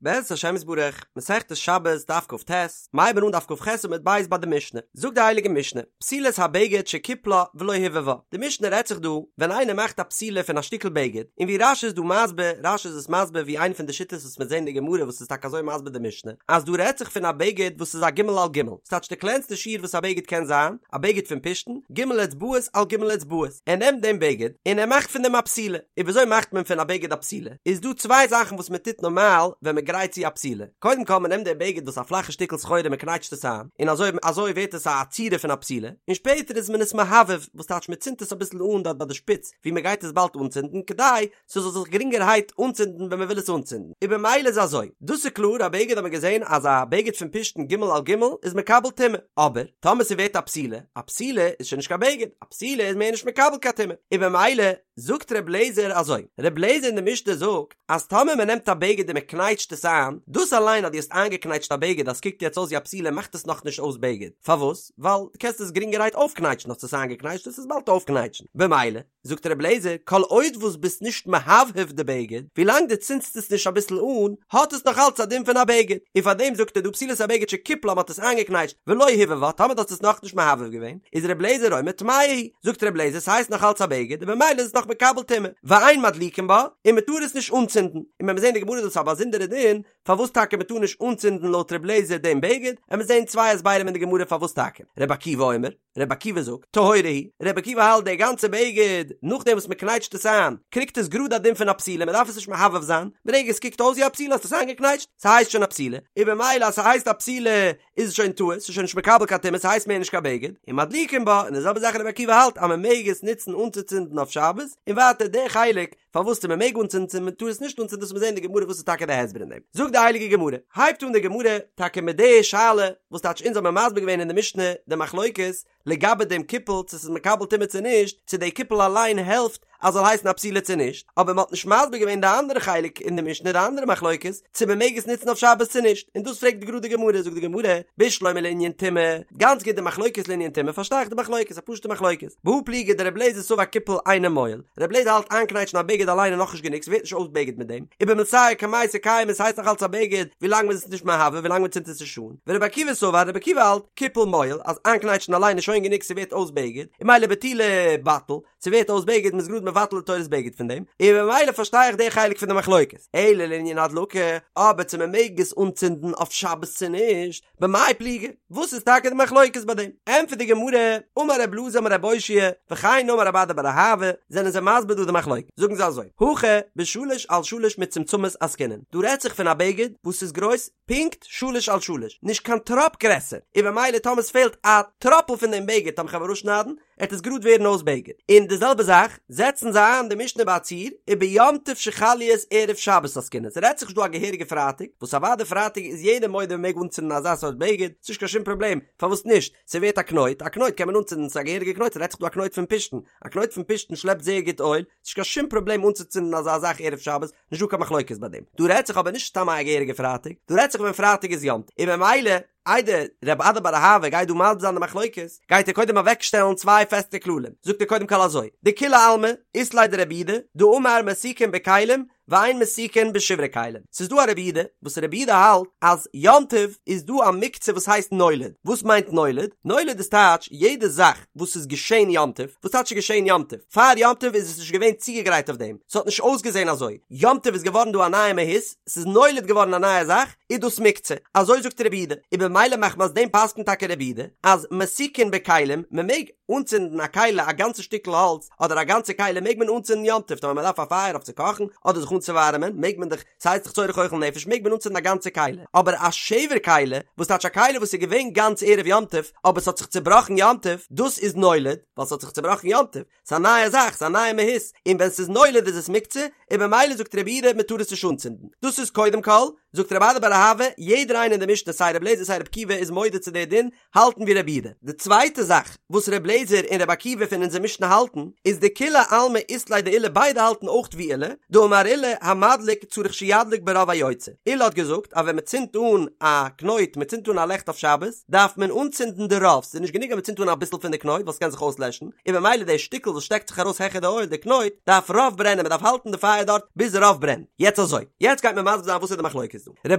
בעזרת השם יתברך, מסכת שבת דף כ"ט, מ'הייבן אן דף כ"ח עמוד ב' ביי די משנה, זאגט די הייליגע משנה, פתילת הבגד שקיפלה ולא הבהבה, די משנה רעדט זיך דא ווען איינער מאכט א פתילה פון א שטיקל בגד, און ווי רש"י איז דא מסביר, רש"י איז עס מסביר ווי איינע פון די שיטות וואס מ'וועט זען אין די גמרא וואס איז טאקע אזוי מסביר די משנה, אז דא רעדט זיך פון א בגד וואס איז א ג' על ג', ס'טייטש די קלענסטע שיעור וואס א בגד קען זיין, א בגד פון פשתן, ג' אצבעות על ג' אצבעות, ער נעמט דעם בגד און ער מאכט פון דעם א פתילה, און וויאזוי מאכט מען פון א בגד א פתילה? איז דא צוויי זאכן וואס מען טוט נארמאל ווען מען גרייט צו א פתילה, קודם כל מען נעמט די בגד וואס א פלאכע שטיקל סחורה מען קנייטשט עס איין, און אזוי אזוי ווערט עס א צורה פון א פתילה, און שפעטער איז מען עס מהבהב, וואס טייטש מען צינדט עס אביסל אן דארט ביי די שפיץ ווי מען גייט עס באלד אנצינדן כדי ס'זאל זיך גרינגערהייט אנצינדן ווען מען וויל עס אנצינדן, און במילא איז אזוי, דאס איז קלאר א בגד האט מען געזען אז א בגד פון פשתן ג' על ג' איז מקבל טומאה, אבער טאמער ס'ווערט א פתילה, א פתילה איז שוין נישט קיין בגד, א פתילה איז מער נישט מקבל קיין טומאה, און במילא זאגט ר' לעזער אזוי, ר' לעזער אין די משנה זאגט אז טאמער מען נעמט א בגד און מען קנייטשט עס איין, דאס אליין אז דו האסט איינגעקנייטשט א בגד אז ס'קוקט יעצט אויס ווי א פתילה מאכט עס נאכנישט אויס בגד, פארוואס? ווייל דו קענסט עס גרינגערהייט אויפקנייטשן, האסט עס איינגעקנייטשט וועסט עס באלד אויפקנייטשן, במילא זאגט ר' לעזער כל עוד וואס ביסט נישט מהבהב די בגד, ווילאנג דו צינדסט עס נישט אביסל אן, האט עס נאך אלץ א דין פון א בגד, און פארדעם זאגט ער דא פתילת הבגד שקיפלה מ'האט עס איינגעקנייטשט ולא הבהבה טאמער דו האסט עס נאכנישט מהבהב געווען, איז ר' לעזער אומר טמאה היא, זאגט ר' לעזער ס'הייסט נאך אלץ א בגד און במילא איז עס נאך מקבל טומאה, ואין מדליקין בה, און מ'טאר עס נישט אנצינדן, און ווען מיר זעהן די גמרא איז דאס א באזונדערע דין, פארוואס טאקע מ'טאר נישט אנצינדן לויט ר' לעזער דעם בגד, עמיר זעהן צוויי הסברים אין די גמרא פארוואס טאקע, ר' עקיבא אומר, ר' עקיבא זאגט, טהורה היא, ר' עקיבא האלט די גאנצע בגד, נאכדעם וואס מ'קנייטשט עס איין, קריגט עס גראד א דין פון א פתילה, מ'דארף עס נישט מהבהב זיין, ברגע עס קוקט אויס ווי א פתילה האסט עס איינגעקנייטשט, ס'הייסט שוין א פתילה, און במילא אז ס'הייסט א פתילה איז עס שוין טהור, ס'איז שוין נישט מקבל קיין טומאה, ס'הייסט מער נישט קיין בגד, און מדליקין בה, און די זעלבע זאך רבי עקיבא האלט אז מען מעג עס נוצן אנצוצינדן אויף שבת, און ווייטער די חלק פארוואס צו מען מעג אנצינדן צו מען טאר עס נישט אנצינדן דאס מיר זעהן אין די גמרא וואס איז טאקע די הסבר אין דעם. זאגט די הייליגע גמרא, הייבט אן די גמרא טאקע מיט די שאלה וואס טייטש אונז האבן מסביר געווען אין די משנה די מחלוקת לגבי דעם קיפול צו ס'איז מקבל טומאה צו נישט, צו די קיפול אליין העלפט אז זאל הייסן א פתילה צו נישט, אבער מ'האט נישט מסביר געווען די אנדערע חלק אין די משנה די אנדערע מחלוקת צו מ'מעג עס נוצן אויף שבת צו נישט, און דאס פרעגט גראד די גמרא, זאגט די גמרא, בשלמא לענין טומאה, גאנץ גוט די מחלוקת לענין טומאה פארשטיי איך די מחלוקת, א פשוטע מחלוקת, בהא פליגי דרבי אליעזר סבר קיפול אינו מועיל, רבי אליעזר האלט איינקנייטשן א בגד אליין איז נאכנישט גענוג ס'ווערט נישט אויס בגד מיט דעם, ובמילתייהו קמייתא קיימא ס'הייסט נאך אלץ א בגד ווילאנג מ'איז עס נישט מהבהב ווילאנג מ'צינדט עס נישט אן. ורבי עקיבא סבר, רבי עקיבא האלט, קיפול מועיל, אז איינקנייטשן אליין איז שוין גענוג ס'ווערט אויס בגד, און ממילא בטולי בטיל, ס'ווערט אויס בגד מ'איז גראד מבטל די תורת בגד פון דעם, און ממילא פארשטיי איך די חלק פון די מחלוקת. אלא לענין הדלקה, אבער צו מ'מעג עס אנצינדן אויף שבת צו נישט, במאי פליגי? וואס איז טאקע די מחלוקת ביי דעם? ענטפערט די גמרא, אמר רב אלעזר אמר רב אושעיא, וכן אמר רב אדא בר אהבה, זענען זיי מסביר דא די מחלוקת, זאגן זיי אזוי, הכא בשלש על שלש מצומצמות עסקינן, דא רעדט זיך פון א בגד וואס איז גרויס פונקט שלש על שלש, נישט קיין טראפ גרעסער, און במילא טאמער ס'פעלט א טראפל פון דעם בגד טאמער כ'וועל אראפשניידן, עט עס גראד ווערן אויס בגד. און די זעלבע זאך, זעצן זיי איין די משנה ביי א ציור, וביום טוב שחל להיות ערב שבת עסקינן, ס'רעדט זיך נישט דא א געהעריגע פרייטאג, וואס אוודאי פרייטאג איז יעדער מודה מ'מעג אנצינדן אזא סארט בגד, ס'נישט קיין שום פראבלעם, פארוואס נישט, ס'ווערט א קנויט, א קנויט קען מען אנצינדן, ס'איז א געהעריגע קנויט, ס'רעדט זיך דא א קנויט פון פשתן, א קנויט פון פשתן שלעפט זייער גוט אויל, ס'נישט קיין שום פראבלעם אנצוצינדן אזא זאך ערב שבת, נישט דא קיין מחלוקת ביי דעם. דא רעדט זיך אבער נישט סתם א געהעריגע פרייטאג, דא רעדט זיך ווען פרייטאג איז יום טוב, און ממילא איידער רב אדא בר אהבה גייט דא מסביר זיין די מחלוקת, גייט ער קודם אוועק שטעלן צוויי פעסטע כללים, זאגט ער קודם כל אזוי, דכולי עלמא אית ליה דרבי יהודה, דאמר מסיקין בכלים ואין מסיקין בשברי כלים, ס'איז דא א רבי יהודה וואס רבי יהודה האלט אז יום טוב איז דא א מוקצה וואס הייסט נולד, וואס מיינט נולד? נולד איז טייטש יעדע זאך וואס איז געשען יום טוב, וואס טייטש איז געשען יום טוב? פאר יום טוב איז עס נישט געווען צוגעגרייט אויף דעם, ס'האט נישט אויסגעזען אזוי, יום טוב איז געווארן דא א נייע מהות, ס'איז נולד געווארן א נייע זאך, איז דאס מוקצה, אזוי זאגט רבי יהודה, און במילא מחמת דעם פסק'נט טאקע רבי יהודה אז מסיקין בכלים, מ'מעג אנצינדן א כלי א גאנצע שטיקל האלץ אדער א גאנצע כלי מעג מען אנצינדן יום טוב, טאמער מ'דארף א פייער אויף צו קאכן אדער זיך אנצואווארעמען מעג מען דאך, ס'הייסט דאך צורך אוכל נפש מעג מען אנצינדן א גאנצע כלי, אבער א שבר כלי, וואס טייטש א כלי וואס איז געווען גאנץ ערב יום טוב אבער ס'האט זיך צובראכן יום טוב, דאס איז נולד, ווייל ס'האט זיך צובראכן יום טוב, ס'איז א נייע זאך, ס'איז א נייע מהות, און ווען ס'איז נולד איז עס מוקצה, און במילא זאגט רבי יהודה מ'טאר עס נישט אנצינדן. דאס איז קודם כל, זאגט רב אדא בר אהבה, יעדער איינער אין די משנה סיי רבי אליעזר סיי רבי עקיבא איז מודה צו די דין, האלטן ווי רבי יהודה. די צווייטע זאך וואס רבי אליעזר און רבי עקיבא פון אונזער משנה האלטן, איז דכולי עלמא אית להו דעולא ביידע האלטן אויך ווי עולא, דאמר עולא. עולא המדליק צריך שידליק ברוב היוצא, עולא האט געזאגט אז ווען מען צינדט אן א קנויט, מען צינדט אן א לעכט אויף שבת, דארף מען אנצינדן די רוב, ס'איז נישט גענוג אז מען צינדט אן אביסל פון די קנויט ווייל ס'קען זיך אויסלעשן, און במילא די שטיקל וואס שטעקט זיך ארויס העכער די אויל, די קנויט, דארף רוב ברענען, מען דארף האלטן די פייער דארט ביז רוב ברענט. יעצט אזוי, יעצט גייט מען מסביר זיין וואס איז די מחלוקת דא. ר'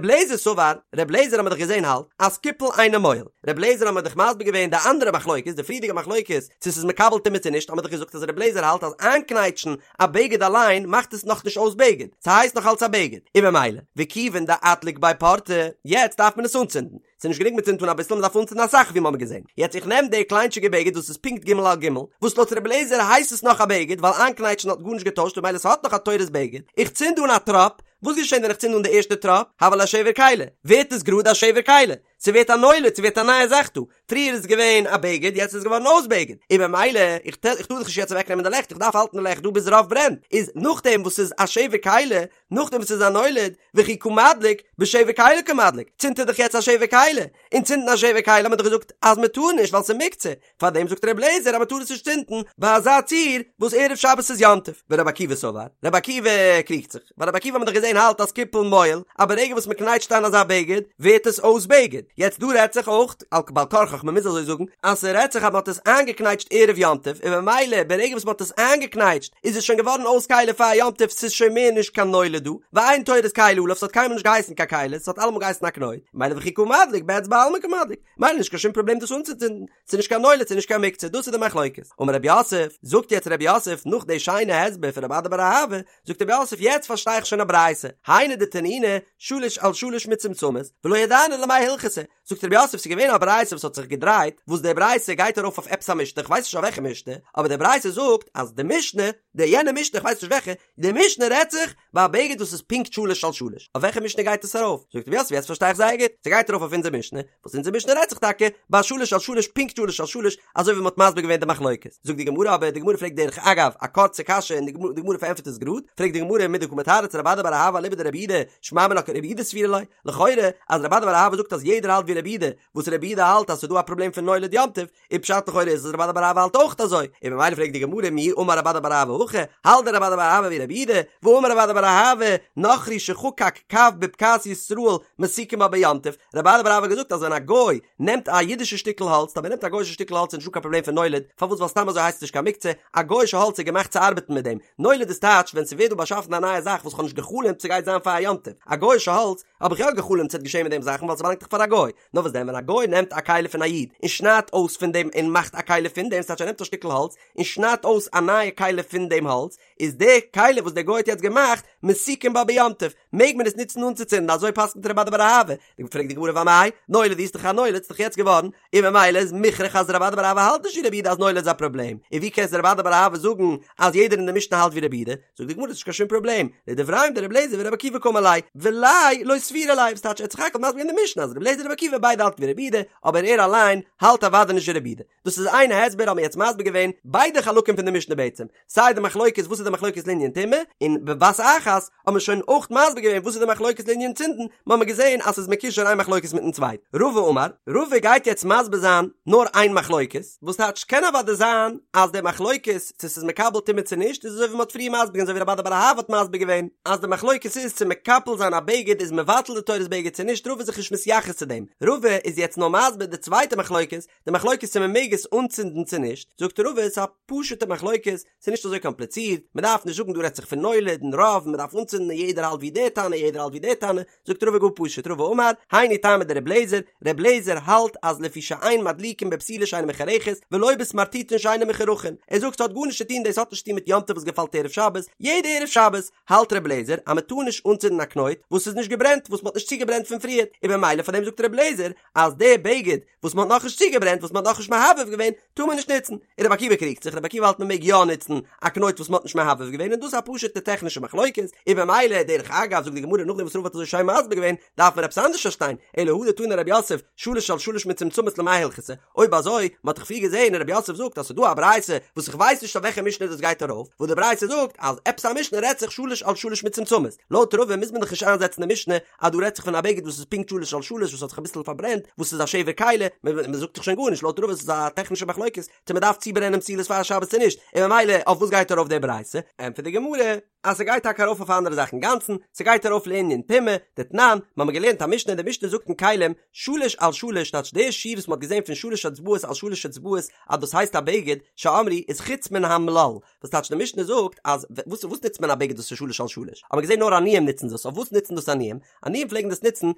לעזער סבר, ר' לעזער האט מען דאך געזען האלט אז קיפול אינו מועיל, ר' לעזער האט מען דאך מסביר געווען די אנדערע מחלוקת, די פריערדיגע מחלוקת, צו ס'איז מקבל טומאה צו נישט, האט מען דאך געזאגט אז ר' לעזער האלט אז איינקנייטשן א בגד אליין מאכט עס נאכנישט אויס בגד, ס'הייסט נאך אלץ א בגד, און במילא, וכיוון דאדליק ביה פורתא, יעצט דארף מען עס אנצינדן, ס'איז נישט גענוג מ'צינדט אן אביסל, מ'דארף אנצינדן אסאך ווי מ'האמיר געזען. יעצט איך נעם די קליינטשיגע בגד וואס איז פונקט ג' על ג', וואס לויט רבי אליעזר הייסט עס נאך א בגד ווייל איינקנייטשן האט גארנישט געטוישט ממילא ס'האט נאך א תורת בגד, איך צינד אן א טראפ, וואס געשען ווען איך צינד אן די ערשטע טראפ? הוה ליה שבר כלי, ווערט עס גראד א שבר כלי, ס'ווערט א נולד, ס'ווערט א נייע זאך דא, פריער איז עס געווען א בגד יעצט איז עס געווארן אויס בגד, און במילא איך טאר דאך נישט יעצט אוועק נעמען די לעכט איך דארף האלטן די לעכט דא ביז רוב ברענט, איז נאכדעם וואס ס'איז א שבר כלי, נאכדעם וואס ס'איז א נולד, וכי קא מדליק, בשבר כלי קא מדליק, צינדט ער דאך יעצט א שבר כלי, און צינדן א שבר כלי האט מען דאך געזאגט אז מען טאר נישט ווייל ס'איז מוקצה, פארדעם זאגט ר' אליעזר אז מען טאר עס נישט צינדן ביי אזא ציור וואס ערב שבת איז יום טוב, ור' עקיבא סבר, ר' עקיבא קריגט זיך, ווייל ר' עקיבא האט מען דאך געזען האלט אז קיפול מועיל, אז ברגע וואס מען קנייטשט איין אזא בגד ווערט עס אויס בגד, יעצט דא רעדט זיך אויך, על בעל כרחך מען מוז אזוי זאגן, אז ס'רעדט זיך אז מען האט עס איינגעקנייטשט ערב יום טוב און ממילא ברגע וואס מען האט עס איינגעקנייטשט איז עס שוין געווארן אויס כלי פאר יום טוב ס'איז שוין מער נישט קיין נולד דא, ואין תורת כלי עליו ס'האט קיינמאל נישט געהייסן קיין כלי ס'האט אלעמאל געהייסן א קנויט, ממילא וכי קא מדליק באצבע בעלמא קא מדליק, ממילא נישט קיין שום פראבלעם דאס אנצוצינדן, ס'איז נישט קיין נולד ס'איז נישט קיין מוקצה דאס איז די מחלוקת. אמר רב יוסף, זאגט יעצט רב יוסף נאך די שיינע הסבר פון רב אדא בר אהבה, זאגט רב יוסף יעצט פארשטיי איך שוין א ברייתא, היינו דתנינא שלש על שלש מצומצמות, ולא ידענא למאי הלכתא, זאגט רב יוסף ס'איז געווען א ברייתא וואס האט זיך געדרייט, וואס די ברייתא גייט ארויף אויף עפעס א משנה, כ'ווייס נישט אויף וועלכע משנה, אבער די ברייתא זאגט אז די משנה, די יענע משנה כ'ווייס נישט וועלכע, די משנה רעדט זיך ביי א בגד וואס איז פונקט שלש על שלש, אויף וועלכע משנה גייט עס ארויף? זאגט רב יוסף יעצט פארשטיי איך זייער גוט, ס'גייט ארויף אויף אונזער משנה, וואס אונזער משנה רעדט זיך טאקע ביי שלש על שלש פונקט שלש על שלש, אזוי ווי מ'האט מסביר געווען די מחלוקת. זאגט די גמרא אבער, די גמרא פרעגט דרך אגב א קורצע קשיא און די גמרא פארענטפערט עס גראד, פרעגט די גמרא מדקא מתרץ רב אדא בר אהבה אליבא דרבי יהודה, שמע מינה כרבי יהודה סבירא ליה, לכאורה אז רב אדא בר אהבה זאגט אז יעדער האלט ווי רבי יהודה, וואס רבי יהודה האלט אז ס'איז דא א פראבלעם פון נולד יום טוב, און פשט לכאורה איז אז רב אדא בר אהבה האלט אויך אזוי, און ממילא פרעגט די גמרא מי אמר רב אדא בר אהבה הכי, האלט דען רב אדא בר אהבה ווי רבי יהודה, והאמר רב אדא בר אהבה, נכרי שחקק קב בבקעת ישראל מסיקין בה ביום טוב, רב אדא בר אהבה האט געזאגט אז ווען א גוי נעמט א אידישע שטיקל האלץ, טאמער נעמט א גוי'אישע שטיקל האלץ איז נישטא קיין פראבלעם פון נולד, פארוואס ווייל סתם אזוי הייסט עס נישט קיין מוקצה, א גוי'אישע האלץ איז געמאכט צו ארבעטן מיט דעם, נולד איז טייטש ווען ס'ווערט דא באשאפן א נייע זאך וואס כ'האב נישט גע'חלומ'ט ס'גייט זיין פאר א יום טוב, א גוי'אישע האלץ האב איך יא גע'חלומ'ט ס'וועט געשען מיט דעם זאכן ווייל ס'באלאנגט דאך פאר א גוי, נאר וואס דען ווען א גוי נעמט א כלי פון א איד און שניידט אויס פון דעם און מאכט א כלי פון דעם, ס'טייטש ער נעמט א שטיקל האלץ און שניידט אויס א נייע כלי פון דעם האלץ, איז די כלי וואס דער גוי האט יעצט געמאכט מסיקין בה ביום טוב, מעג מען עס נוצן אנצוצינדן, אזוי פסק'נט רב אדא בר אהבה, פרעגט די גמרא ואמאי, נולד איז דאך א נולד, ס'איז דאך יעצט געווארן, און ממילא איז מוכרח אז רב אדא בר אהבה האלט נישט ווי רבי יהודה אז נולד איז א פראבלעם, און ווי קען רב אדא בר אהבה זאגן אז יעדער אין די משנה האלט ווי רבי יהודה, זאגט די גמרא ס'נישט קיין שום פראבלעם, לדבריהם דרבי אליעזר ורבי עקיבא קאמר ליה, וליה לא סבירא ליה, וואס טייטש ער האט סך הכל מסביר געווען די משנה אז רבי אליעזר און רבי עקיבא ביידע האלטן ווי רבי יהודה, אבער ער אליין האלט אוודאי נישט ווי רבי יהודה. דאס איז איין הסבר האבן מיר יעצט מסביר געווען ביידע חלקים פון די משנה בעצם, סיי די מחלוקת וואס איז די מחלוקת לענין טומאה, און בבת אחת האבן מיר שוין אויך מסביר געווען וואס איז די מחלוקת לענין צינדן, מיר האבן געזען אז ס'איז מקושר איין מחלוקת מיטן צווייטן. רבא אמר, רבא גייט יעצט מסביר זיין נאר איין מחלוקת, וואס טייטש קען אוודאי זיין אז די מחלוקת צו ס'איז מקבל טומאה צו נישט איז אזוי ווי מ'האט פריער מסביר געווען אזוי ווי רב אדא בר אהבה האט מסביר געווען אז די מחלוקת איז צו מקפל זיין א בגד איז מבטל די תורת בגד צו נישט רבא איז זיך נישט מתייחס צו דעם רבא איז יעצט נאר מסביר די צווייטע מחלוקת די מחלוקת צו מ'מעג עס אנצינדן צו נישט זאגט רבא ס'איז א פשוטע מחלוקת ס'איז נישט אזוי קאמפליצירט מ'דארף נישט זאגן דא רעדט זיך פון נולד און רוב מ'דארף אנצינדן און יעדער האלט ווי די תנא יעדער האלט ווי די תנא זאגט רבא גאר פשוט, רבא אמר, היינו טעמא דרבי אליעזר, רבי אליעזר האלט אז לפי שאין מדליקין בפתילה שאינה מחורכת, ולא בסמרטוטין שאינן מחורכין, ער זאגט ס'האט גארנישט צו טון דאס האט נישט צו טון מיט יום טוב וואס געפאלט ערב שבת, יעדע ערב שבת האלט רבי אליעזר אז מ'טאר נישט אנצינדן א קנויט וואס איז נישט געברענט וואס מ'האט נישט צוגעברענט פון פריערט, און במילא פאר דעם זאגט רבי אליעזר אז די בגד וואס מ'האט נאכנישט צוגעברענט וואס מ'האט נאכנישט מהבהב געווען טאר מען נישט נוצן, און רבי עקיבא קריגט זיך, רבי עקיבא האלט מ'מעג יא נוצן א קנויט וואס מ'האט נישט מהבהב געווען און דאס איז א פשוט'ע טעכנישע מחלוקת, און במילא דרך אגב זאגט די גמרא נאכדעם וואס רבא האט אזוי שיין מסביר געווען דארף מען עפעס אנדערש פארשטיין, אלא הא דתני רב יוסף שלש על שלש מצומצמות למאי הלכתא, אויב אזוי, מ'האט דאך פריער געזען און רב יוסף זאגט אז ס'איז דא א ברייתא וואס איך ווייס נישט אויף וועלכע משנה דאס גייט ארויף, וואס די ברייתא זאגט אז עפעס א משנה רעדט זיך שלש על שלש מצומצמות, לויט רבא מוז מען דאך נישט איינזעצן די משנה. אז דא רעדט זיך פון א בגד וואס איז פונקט שלש על שלש וואס האט זיך אביסל פארברענט וואס איז א שבר כלי, מען זאגט דאך שוין גארנישט לויט רבא ס'איז א טעכנישע מחלוקת צו מען דארף צוברענען פתילות פאר שבת צו נישט, און ממילא אויף וואס גייט ארויף די ברייתא? ענטפערט די גמרא אז ס'גייט טאקע ארויף אויף א אנדערע זאך אינגאנצן, ס'גייט ארויף לענין טומאה, דתנן, מ'האמיר געלערנט א משנה, די משנה זאגט אין כלים, שלש על שלש טייטש די שיעור וואס מ'האט געזען פון שלש אצבעות על שלש אצבעות אז דאס הייסט א בגד, שאמרו איז חוץ מן המלל, וואס טייטש די משנה זאגט אז וואס וואס נוצט מען א בגד וואס איז שלש על שלש? האט מען געזען נאר עניים נוצן דאס, אויף וואס נוצן דאס עניים? עניים פלעגן דאס נוצן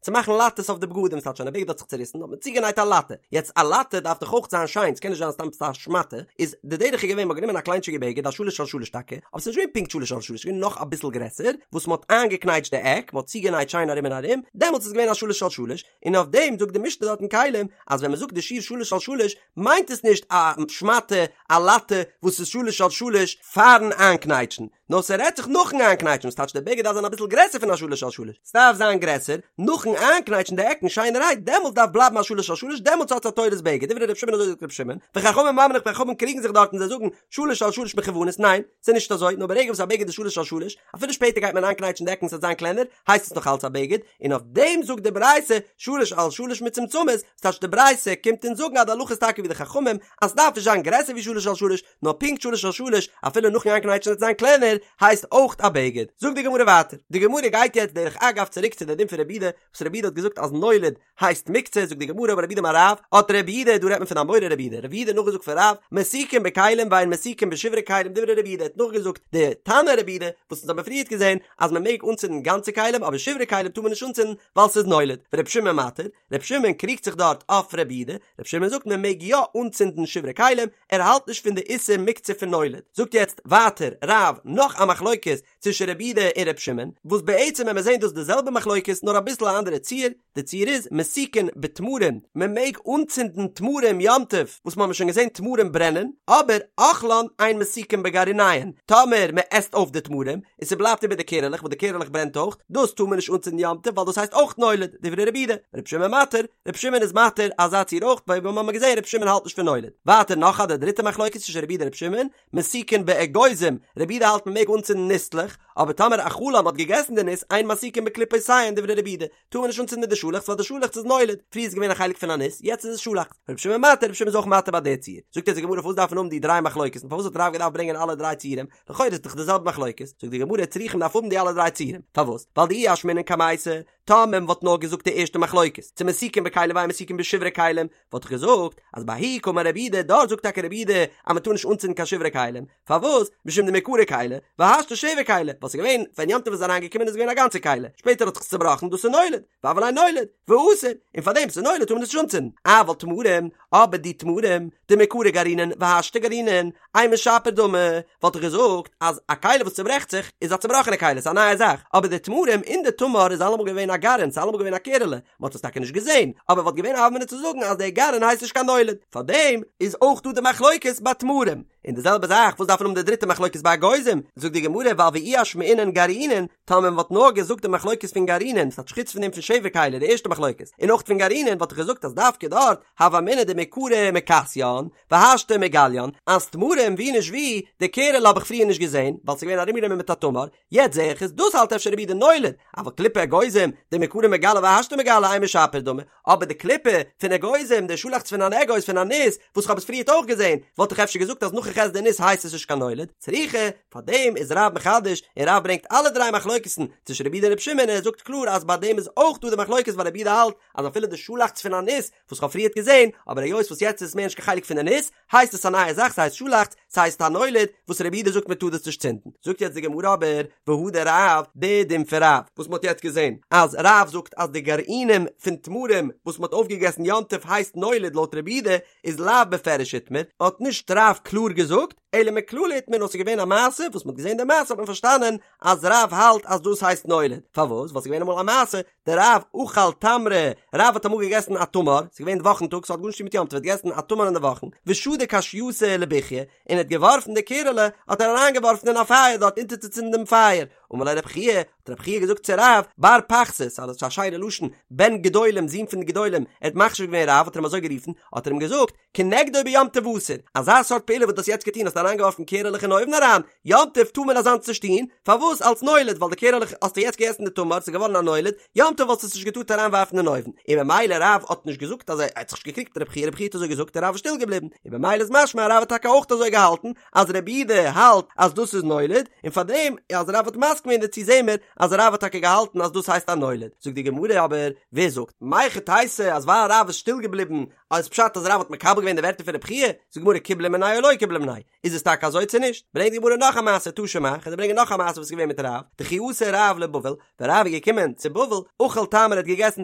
צו מאכן לאטעס אויף די בגדים, ס'טייטש ווען א בגד האט זיך צוריסן האט מען צוגענייט א לאטע, יעצט א לאטע דארף דאך אויך זיין שיין, ס'קען נישט זיין סתם עפעס א שמאטע, איז די דרך איז געווען מ'האט גענומען א קליינטשיגע בגד א שלש על שלש טאקע, אבער ס'איז נישט געווען פונקט שלש על שלש, ס'איז געווען נאך אביסל גרעסער, וואס מ'האט איינגעקנייטשט די עק, מ'האט צוגענייט שיין ארום און ארום, דעמאלטס איז געווען א שלש על שלש, און אויף דעם זאגט די משנה דארט אין כלים, אז ווען מ'זאגט די שיעור שלש על שלש, מיינט עס נישט א שמאטע, א לאטע, וואס איז שלש על שלש פארן איינקנייטשן, נאר ס'רעדט זיך נאכן איינקנייטשן, וואס טייטש די בגד דארף זיין אביסל גרעסער פון א שלש על שלש, ס'דארף זיין גרעסער, נאכן איינקנייטשן די עקן שיינערהייט, דעמאלטס דארף בלייבן א שלש על שלש, דעמאלטס האט עס א תורת בגד, דברי ר' שמעון אזוי זאגט ר' שמעון, וחכמים אומרים חכמים קריגן זיך דארט און זיי זאגן, שלש על שלש מכוונות, ניין, ס'איז נישט אזוי, נאר ברגע וואס א בגד איז שלש על שלש, אפילו שפעטער גייט מען איינקנייטשן די עקן ס'וועט זיין קלענער, הייסט עס נאך אלץ א בגד, און אויף דעם זאגט די ברייתא שלש על שלש מצומצמות, ס'טייטש די ברייתא קומט אונז זאגן אז די הלכה איז טאקע ווי די חכמים, אז ס'דארף נישט זיין גרעסער ווי שלש על שלש, נאר פונקט שלש על שלש, אפילו נאכן איינקנייטשן וועט עס זיין קלענער, הייסט אויך א בגד. זאגט די גמרא ווייטער, די גמרא גייט יעצט דרך אגב צוריק צו די דין פון רבי יהודה, וואס רבי יהודה האט געזאגט אז נולד הייסט מוקצה, זאגט די גמרא אמר רב יהודה אמר רב, האט רבי יהודה, דא רעדט מען פון אמורא רב יהודה, רב יהודה נאכגעזאגט פון רב, מסיקין בכלים ואין מסיקין בשברי כלים דברי רבי יהודה האט נאכגעזאגט די תנא רבי יהודה, וואס אונז האבן פריערט געזען אז מען מעג אנצינדן גאנצע כלים אבער שברי כלים טאר מען נישט אנצינדן ווייל ס'איז נולד, ורבי שמעון מתיר, רבי שמעון קריגט זיך דארט אויף רבי יהודה, רבי שמעון זאגט מען מעג יא אנצינדן שברי כלים, ער האלט נישט פון די איסור מוקצה פון נולד. זאגט יעצט ווייטער רב נאך א מחלוקת צווישן רבי יהודה און רבי שמעון, וואס בעצם ווען מיר זעהן דאס די זעלבע מחלוקת נאר אביסל א אנדערע ציור, די ציור איז מסיקין בתמרים, מען מעג אנצינדן תמרים יום טוב, וואס מ'האמיר שוין געזען תמרים ברענען, אבער אוכלן אין מסיקין בגרעיניהן, טאמער מען עסט אויף די תמרים, און ס'בלייבט איבער די קערעלעך וואס די קערעלעך ברענט אויך, דאס טאר מען נישט אנצינדן יום טוב ווייל דאס הייסט אויך נולד, דברי רבי יהודה, רבי שמעון מתיר, רבי שמעון איז מתיר אזא ציור אויך, ווייל ווי מ'האמיר געזען רבי שמעון האלט נישט פון נולד. ווייטער נאך א די דריטע מחלוקת צווישן רבי יהודה און רבי שמעון, מסיקין באגוזים, רבי יהודה האלט מ'מעג אנצינדן ניסלעך, אבער טאמער אכלן מ'האט געגעסן די ניס אין מסיקין בקליפותיהן דברי רבי יהודה, טאר מען נישט אנצינדן מיט די שאלעכץ ווייל די שאלעכץ איז נולד, פריער איז געווען א חלק פון א ניס, יעצט איז עס שאלעכץ. רבי שמעון מתיר, רבי שמעון איז אויך מתיר ביי די ציור. זאגט אונז די גמרא פארוואס דארף מען האבן די דריי מחלוקת'ן, פארוואס האט רב געדארפט ברענגען אלע דריי ציורים, לכאורה איז דאך די זעלבע מחלוקת, זאגט די גמרא צריכא מ'דארף האבן די אלע דריי ציורים, פארוואס? ווייל דאי אשמעינן קמייתא, טאמער מען וואלט נאר געזאגט די ערשטע מחלוקת, צו מסיקין בכלים ואין מסיקין בשברי כלים, וואלט איך געזאגט אז בההיא קאמר רבי יהודה, דארט זאגט טאקע רבי יהודה אז מען טאר נישט אנצינדן קיין שברי כלים, פארוואס? משום דמעיקרא כלי, והשתא שבר כלי, ווייל ס'איז געווען, ווען יום טוב איז אריינגעקומען איז געווען א גאנצע כלי, שפעטער האט זיך עס צובראכן, דאס איז נולד, והוה ליה נולד, ואסור, און פארדעם ס'איז נולד טאר מען עס נישט אנצינדן, אבל תמרים, אבער די תמרים, דמעיקרא גרעינין והשתא גרעינין, אימא שפיר דמי, וואלט איך געזאגט אז א כלי וואס צוברעכט זיך איז א צובראכענע כלי, ס'איז א נייע זאך, אבער די תמרים אין די תמר איז אלעמאל געווען א גרעין, ס'איז אלעמאל געווען א קערעלע, מ'האט עס טאקע נישט געזען, אבער וואלט געווען א הוה אמינא צו זאגן אז דער גרעין הייסט נישט קיין נולד, פארדעם איז אויך דא די מחלוקת ביי תמרים. און די זעלבע זאך וואס דארף מען האבן די דריטע מחלוקת ביי אגוזים, זאגט די גמרא ווייל ואי אשמעינן גרעינין, טאמער מען וואלט נאר געזאגט די מחלוקת פון גרעינין, ס'טייטש חוץ פון דעם פון שבר כלי די ערשטע מחלוקת, און אויך פון גרעינין וואלט איך געזאגט אז דווקא דארט הוה אמינא דמעיקרא מכסיין, והשתא מגליין, אז תמרים ווי נישט ווי, די קערעלע האב איך פריער נישט געזען, ווייל ס'איז געווען ארומגענומען מיט א תמר, יעצט זעה איך עס, דאס האלט אפשר רבי יהודה נולד, אבל קליפי אגוזים, דמעיקרא מגלי והשתא מגלי אימא שפיר דמי, אבער די קליפה פון אגוזים, די שאלאכץ פון אן אגוז פון א ניס, וואס כ'האב עס פריערט אויך געזען, וואלט איך אפשר געזאגט אז נאך איך עס די ניס הייסט עס נישט קיין נולד, צריכא, פארדעם איז רב מחדש, און רב ברענגט אלע דריי מחלוקת'ן צווישן רבי יהודה און רבי שמעון און ער זאגט קלאר אז ביי דעם איז אויך דא די מחלוקת ווייל רבי יהודה האלט אז אפילו די שאלאכץ פון א ניס וואס כ'האב פריערט געזען, אבער היות וואס יעצט איז עס מער נישט קיין חלק פון די ניס, הייסט עס א נייע זאך, ס'הייסט שאלאכץ, ס'הייסט א נולד, וואס רבי יהודה זאגט מ'טאר דאס נישט צינדן. זאגט יעצט די גמרא אבער, והא דרב, די דין פון רב, וואס מ'האט יעצט געזען, אז רב זאגט אז די גרעינים פון תמרים וואס מ'האט אויפגעגעסן יום טוב הייסט נולד לויט רבי יהודה, איז לאו בפירוש איתמר, האט נישט רב קלאר געזאגט, אלא מכללא איתמר נאר ס'איז געווען א מעשה, וואס מ'האט געזען די מעשה האט מען פארשטאנען אז רב האלט אז דאס הייסט נולד, פארוואס? ווייל ס'איז געווען אמאל א מעשה, דרב אכל תמרי, רב האט אמאל געגעסן א תמר, ס'איז געווען וואכן טאג, ס'האט גארנישט צו טון מיט יום טוב, ער האט געגעסן א תמר אין די וואכן, ושדק אשייתא לבוכיא, און ער האט געווארפן די קערעלע, האט ער אריינגעווארפן אין א פייער דארט אונטערצוצינדן דעם פייער, אמר ליה רב חייא, האט רב חייא געזאגט צו רב, בר פחתית, ס'איז א שיינע לשון, בן גדולים, זון פון די גדולים, ער האט מחשיב געווען רב האט ער אים אזוי גערופן, האט ער אים געזאגט, כנגדו ביום טוב אסור, אזא סארט פעולה וואס דו האסט יעצט געטון האסט אריינגעווארפן קערעלעך אין אויוון אריין, יום טוב טאר מען אזאנס נישט טון, פארוואס אלס נולד, ווייל די קערעלעך האסטו יעצט געגעסן די תמר, ס'איז געווארן א נולד, יום טוב וואלסטו עס נישט געטארט אריינווארפן אין אויוון, און במילא רב האט נישט געזאגט אז ער האט זיך נישט געקריגט מיט רבי חייא, רבי חייא האט אזוי געזאגט און רב איז שטיל געבליבן, און במילא איז משמע אז רב האט טאקע אויך אזוי געהאלטן, אז רבי יהודה האלט אז דאס איז נולד, און פארדעם אז רב האט מסכים געווען דערצו זעהן מיר אז רב האט טאקע געהאלטן אז דאס הייסט א נולד, זאגט די גמרא אבער, ווער זאגט? מהיכי תיתי אז ווייל רב איז שטיל געבליבן איז פשט אז רב האט מקבל געווען די ווערטער פון רבי חייא? זאגט די גמרא קיבלה מיניה או לא קיבלה מיניה, איז עס טאקע אזוי צו נישט? ברענגט די גמרא נאך א מעשה תא שמע, כ'וועל דיר ברענגען נאך א מעשה וואס איז געווען מיט רב, דכי אתא רב לבבל, ווען רב איז געקומען צו בבל, אכל תמרי ער האט געגעסן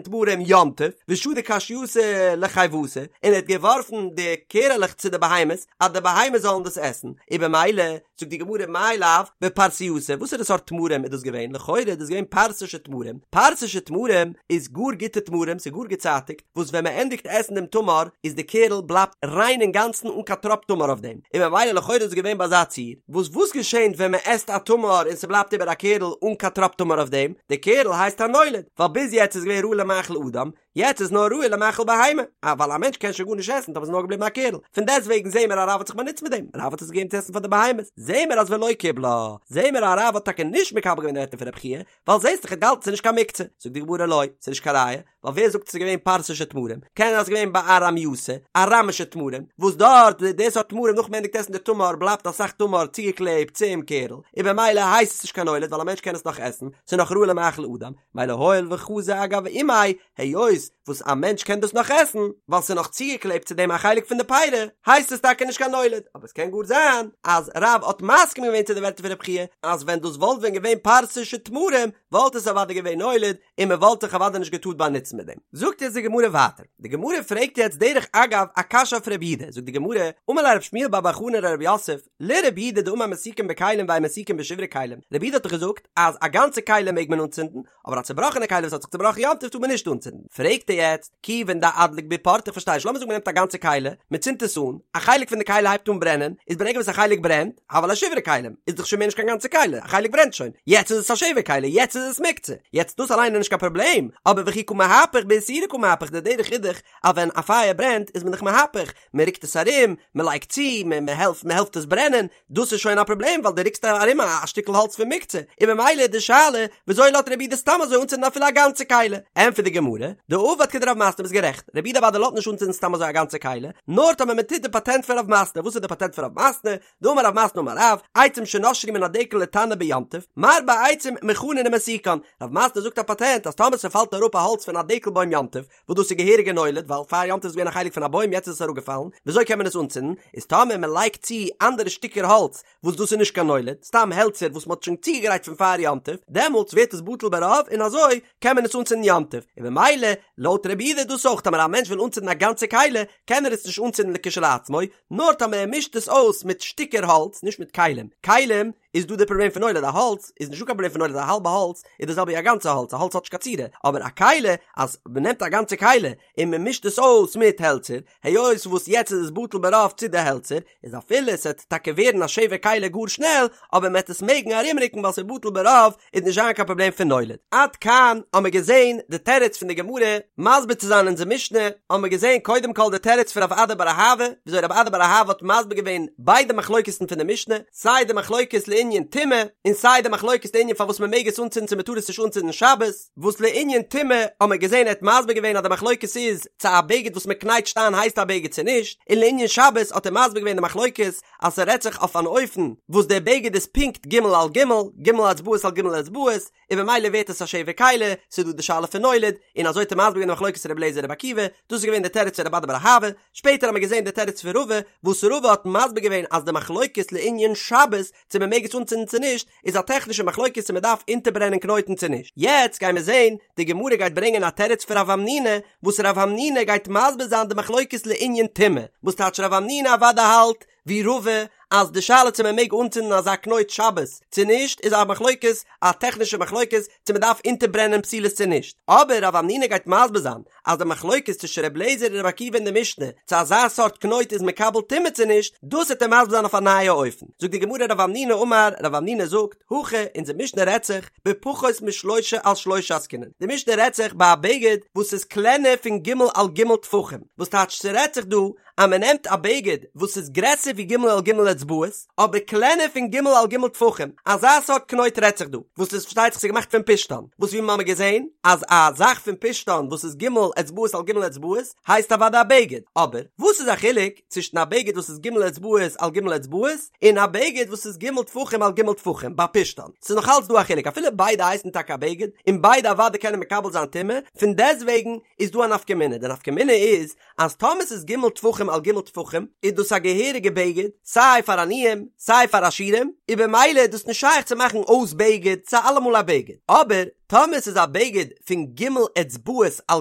תמרים יום טוב, ושדי קשייתא לחיותא, און ער האט געווארפן די קערעלעך צו די בהמות, אז די בהמות זאלן דאס עסן, און במילא, זאגט די גמרא מאי לאו בפרסייתא, וואסערע סארט תמרים איז דאס געווען? לכאורה איז דאס געווען פרסישע תמרים, פרסישע תמרים איז גאר גוטע תמרים, ס'איז גאר געצייטיגט, וואס ווען מען ענדיגט עסן דעם תמר איז די קערל בלייבט ריין אינגאנצן אן קיין טראפ תמר אויף דעם, און ממילא לכאורה איז עס געווען ביי אזא ציור, וואס וואס געשענט ווען מען עסט א תמר און ס'בלייבט איבער א קערל אן קיין טראפ תמר אויף דעם, די קערל הייסט א נולד, ווייל ביז יעצט איז געווען ראוי למאכל אדם, יעצט איז נאר ראוי למאכל בהמה, אה ווייל א מענטש קען שוין גארנישט עסן טאמער ס'איז נאר געבליבן א קערל, פון דעסטוועגן זעהן מיר אז רב האט זיך באנוצט מיט דעם, רב האט עס געגעבן צו עסן פאר די בהמות, זעהן מיר אז ולא קיבלה, זעהן מיר אז רב האט טאקע נישט מקבל געווען די ווערטער פון רבי חייא, ווייל זעהסט דאך ער האט געהאלטן ס'איז נישט קיין מוקצה, זאגט די גמרא לא, ס'איז נישט קיין ראיה, ווייל ווער זאגט ס'איז געווען פרסישע תמרים, קען זיין ס'איז געווען בארמייתא, אראמישע תמרים, וואס דארט די סארט תמרים נאך מ'ענדיגט עסן די תמר בלייבט אסאך תמר צוגעקלעבט צום קערל, און במילא הייסט עס נישט קיין נולד ווייל א מענטש קען עס נאך עסן, ס'איז נאך ראוי למאכל אדם, מילא הואיל וחזי אגב אימיה, היות וואס א מענטש קען דאס נאך עסן, ווייל ס'איז נאך צוגעקלעבט צו דעם א חלק פון די פירי, הייסט עס טאקע נישט קיין נולד, אבער עס קען גאר זיין אז רב האט מסכים געווען צו די ווערטער פון רבי חייא, אז ווען דאס וואלט ווען געווען פרסישע תמרים וואלט עס אוודאי געווען נולד, און מען וואלט זיך אוודאי נישט געטארט באנוצן מיט דעם. זאגט יעצט די גמרא ווייטער, די גמרא פרעגט יעצט דרך אגב א קשיא אויף רבי יהודה, זאגט די גמרא, אמר ליה רב שמואל בר בר חנה לרב יוסף, לרבי יהודה דאמר מסיקין בכלים ואין מסיקין בשברי כלים, רבי יהודה האט דאך געזאגט אז א גאנצע כלי מעג מען אנצינדן, אבער א צובראכענע כלי וואס האט זיך צובראכן יום טוב טאר מען נישט אנצינדן, פרעגט ער יעצט, כיוון דאדליק בהו פורתא איך פארשטיי נישט, לאמיר זאגן מען נעמט א גאנצע כלי, מען צינדט עס אן, א חלק פון די כלי הייבט אן ברענען, איז ברגע וואס א חלק ברענט, הוה ליה שברי כלים, איז דאך שוין מער נישט קיין גאנצע כלי, א חלק ברענט שוין, יעצט איז עס א שבר כלי, יעצט איז עס מוקצה, יעצט דאס אליין איז נישט קיין פראבלעם, אבער וכי קא מהפך באיסורי קא מהפך, די דרך איז דאך אז ווען א פייער ברענט איז מען דאך מהפך, מען רוקט עס ארום, מען לייגט צו, מען העלפט, מען העלפט עס ברענען, דאס איז שוין א פראבלעם ווייל דו רוקסט ארום א שטיקל האלץ פון מוקצה, און ממילא איז די שאלה וויאזוי לאזט רבי יהודה סתם אזוי אנצינדן אפילו א גאנצע כלי? ענטפערט די גמרא, דעבד כדרב מתנה ביסט גערעכט, רבי יהודה אוודאי לאזט נישט אנצינדן סתם אזוי א גאנצע כלי, נאר טאמער מען טוט די פאטענט פון רב מתנה, וואס איז די פאטענט פון רב מתנה? דאמר רב מתנה אמר רב, עצים שנשרו מן הדקל לתנור ביום טוב, מרבה עצים מוכנין ומסיקן, רב מתנה זאגט א פאטענט אז טאמער ס'פאלט אראפ א האלץ פון א דקל בוים יום טוב, וואס דאס איז געהעריגע נולד ווייל פאר יום טוב איז געווען א חלק פון א בוים יעצט איז עס אראפגעפאלן, וויאזוי קען מען עס אנצינדן? איז טאמער מען לייגט צו אנדערע שטיקער האלץ וואס דאס איז נישט קיין נולד, סתם העלצער וואס מען האט שוין צוגעגרייט פון פאר יום טוב, דעמאלטס ווערט עס בטל ברוב און אזוי קען מען עס אנצינדן יום טוב, און במילא לויט רבי יהודה איז דאס אויך טאמער א מענטש וויל אנצינדן א גאנצע כלי קען ער עס נישט אנצינדן לכשלעצמו, נאר טאמער ער מישט עס אויס מיט שטיקער האלץ, נישט מיט כלים, כלים איז דא די פראבלעם פון נולד, א האלץ איז נישטא קיין פראבלעם פון נולד, א האלבע האלץ איז די זעלבע ווי א גאנצע האלץ, א האלץ האט נישט קיין צורה, אבער א כלי אז מען נעמט א גאנצע כלי און מען מישט עס אויס מיט העלצער, היות וואס יעצט איז עס בטל ברוב צו די העלצער, איז אפילו עס וועט טאקע ווערן א שבר כלי גאר שנעל, אבער מען וועט עס מעגן ארומרוקן ווייל ס'איז בטל ברוב, איז נישט זיין קיין פראבלעם פון נולד. עד כאן האמיר געזען די תירוץ פון די גמרא מסביר צו זיין אונזער משנה, האמיר געזען קודם כל די תירוץ פון רב אדא בר אהבה, וויאזוי רב אדא בר אהבה האט מסביר געווען ביידע מחלוקת'ן פון די משנה, סיי די מחלוקת לענין טומאה, און סיי די מחלוקת לענין פארוואס מען מעג עס אנצינדן צו מען טאר עס נישט אנצינדן שבת, וואס לענין טומאה האמיר געזען ער האט מסביר געווען אז די מחלוקת איז צו א בגד וואס מען קנייטשט איין הייסט א בגד צו נישט, און לענין שבת האט ער מסביר געווען די מחלוקת אז ס'רעדט זיך אויף אן אופן וואס דער בגד איז פונקט ג' על ג', ג' אצבעות על ג' אצבעות, און במילא ווערט עס א שבר כלי, ס'איז דא די שאלה פון נולד, און אזוי האט ער מסביר געווען די מחלוקת רבי אליעזר רבי עקיבא, דאס איז געווען די תירוץ פון רב אדא בר אהבה, שפעטער האט מען געזען די תירוץ פון רבא, וואס רבא האט מסביר געווען אז די מחלוקת לענין שבת, צו מען מעג עס אנצינדן צו נישט, איז א טעכנישע מחלוקת צו מען דארף אונטערברענען קנויטן צו נישט. יעצט גיימיר זען, די גמרא גייט ברענגען א תירוץ פון רב המנונא, וואס רב המנונא גייט מסביר זיין די מחלוקת לענין טומאה, וואס טייטש רב המנונא אוודאי האלט, ווי רבא, אז די שאלה צו מען מעג אנצינדן אזא קנויט שבת צו נישט איז א מחלוקת, א טעכנישע מחלוקת צו מען דארף אונטערברענען פתילות צו נישט, אבער רב המנונא גייט מסביר זיין אז די מחלוקת צווישן ר' לעזער און ר' עקיבא אין די משנה צו אזא סארט קנויט איז מקבל טומאה צו נישט, דאס וועט ער מסביר זיין אויף א נייע אופן. זאגט די גמרא רב המנונא אמר, רב המנונא זאגט, הכא, אונזער משנה רעדט זיך, בפחות משלושה על שלושה עסקינן, די משנה רעדט זיך ביי א בגד וואס איז קלענער פון ג' על ג' טפחים, וואס טייטש ס'רעדט זיך דא אז מען נעמט א בגד וואס איז גרעסער ווי ג' על ג' אצבעות, אבער קלענער פון ג' על ג' טפחים, אזא סארט קנויט רעדט זיך דא, וואס איז פארשטייט זיך ס'איז געמאכט פון פשתן, וואס ווי מ'האמיר געזען אז א זאך פון פשתן וואס איז ג' אצבעות על ג' אצבעות הייסט אוודאי א בגד, אבער וואס איז א חילוק צווישן א בגד וואס איז ג' אצבעות על ג' אצבעות און א בגד וואס איז ג' טפחים על ג' טפחים ביי פשתן, ס'איז נאך אלץ דא א חילוק אפילו ביידע הייסן טאקע א בגד און ביידע אוודאי קענען מקבל זיין טומאה, פון דעסטוועגן איז דא א נפקא מינה, די נפקא מינה איז אז טאמער ס'איז ג' טפחים על ג' טפחים איז דאס א געהעריגע בגד סיי פאר עניים סיי פאר עשירים, און במילא איז דאס נישט שייך צו מאכן אויס בגד, ס'איז אלעמאל א בגד. אבער טאמער ס'איז א בגד פון ג' אצבעות על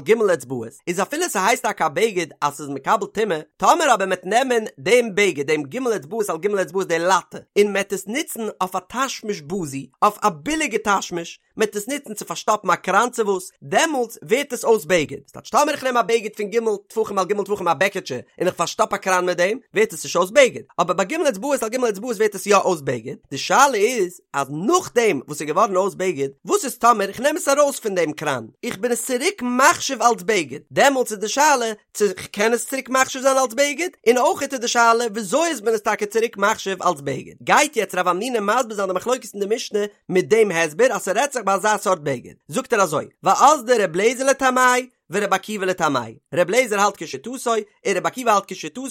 ג' אצבעות איז אפילו ס'הייסט טאקע א בגד אז ס'איז מקבל טומאה, טאמער אבער מ'עט נעמען דעם בגד דעם ג' אצבעות על ג' אצבעות די לאטע און מ'עט עס נוצן אויף א תשמיש בזוי, אויף א ביליגע תשמיש, מ'עט עס נוצן צו פארשטאפן א קראן צו וואס, דעמאלטס ווערט עס אויס בגד. ס'טייטש טאמער איך נעם א בגד פון ג' טפחים על ג' טפחים א בעקעטשע און איך פארשטאפ א קראן מיט דעם, ווערט עס נישט אויס בגד. אבער ביי ג' אצבעות על ג' אצבעות ווערט עס יא אויס בגד. די שאלה איז אז נאכדעם וואס ס'איז געווארן אויס בגד, וואס איז טאמער איך נעם עס ארויס פון דעם קראן, איך בין עס צוריק מחשיב אלס בגד, דעמאלטס איז די שאלה צו כ'קען עס צוריק מחשיב זיין אלס בגד, און אויכעט איז די שאלה וויאזוי איז מען עס טאקע צוריק מחשיב אלס בגד. גייט יעצט רב המנונא מסביר זיין די מחלוקת אין די משנה מיט דעם הסבר אז ס'רעדט זיך ביי אזא סארט בגד, זאגט ער אזוי, ואזדא ר' לעזער לטעמיה ור' עקיבא לטעמיה, ר' לעזער האלט כשיטתו און ר' עקיבא האלט כשיטתו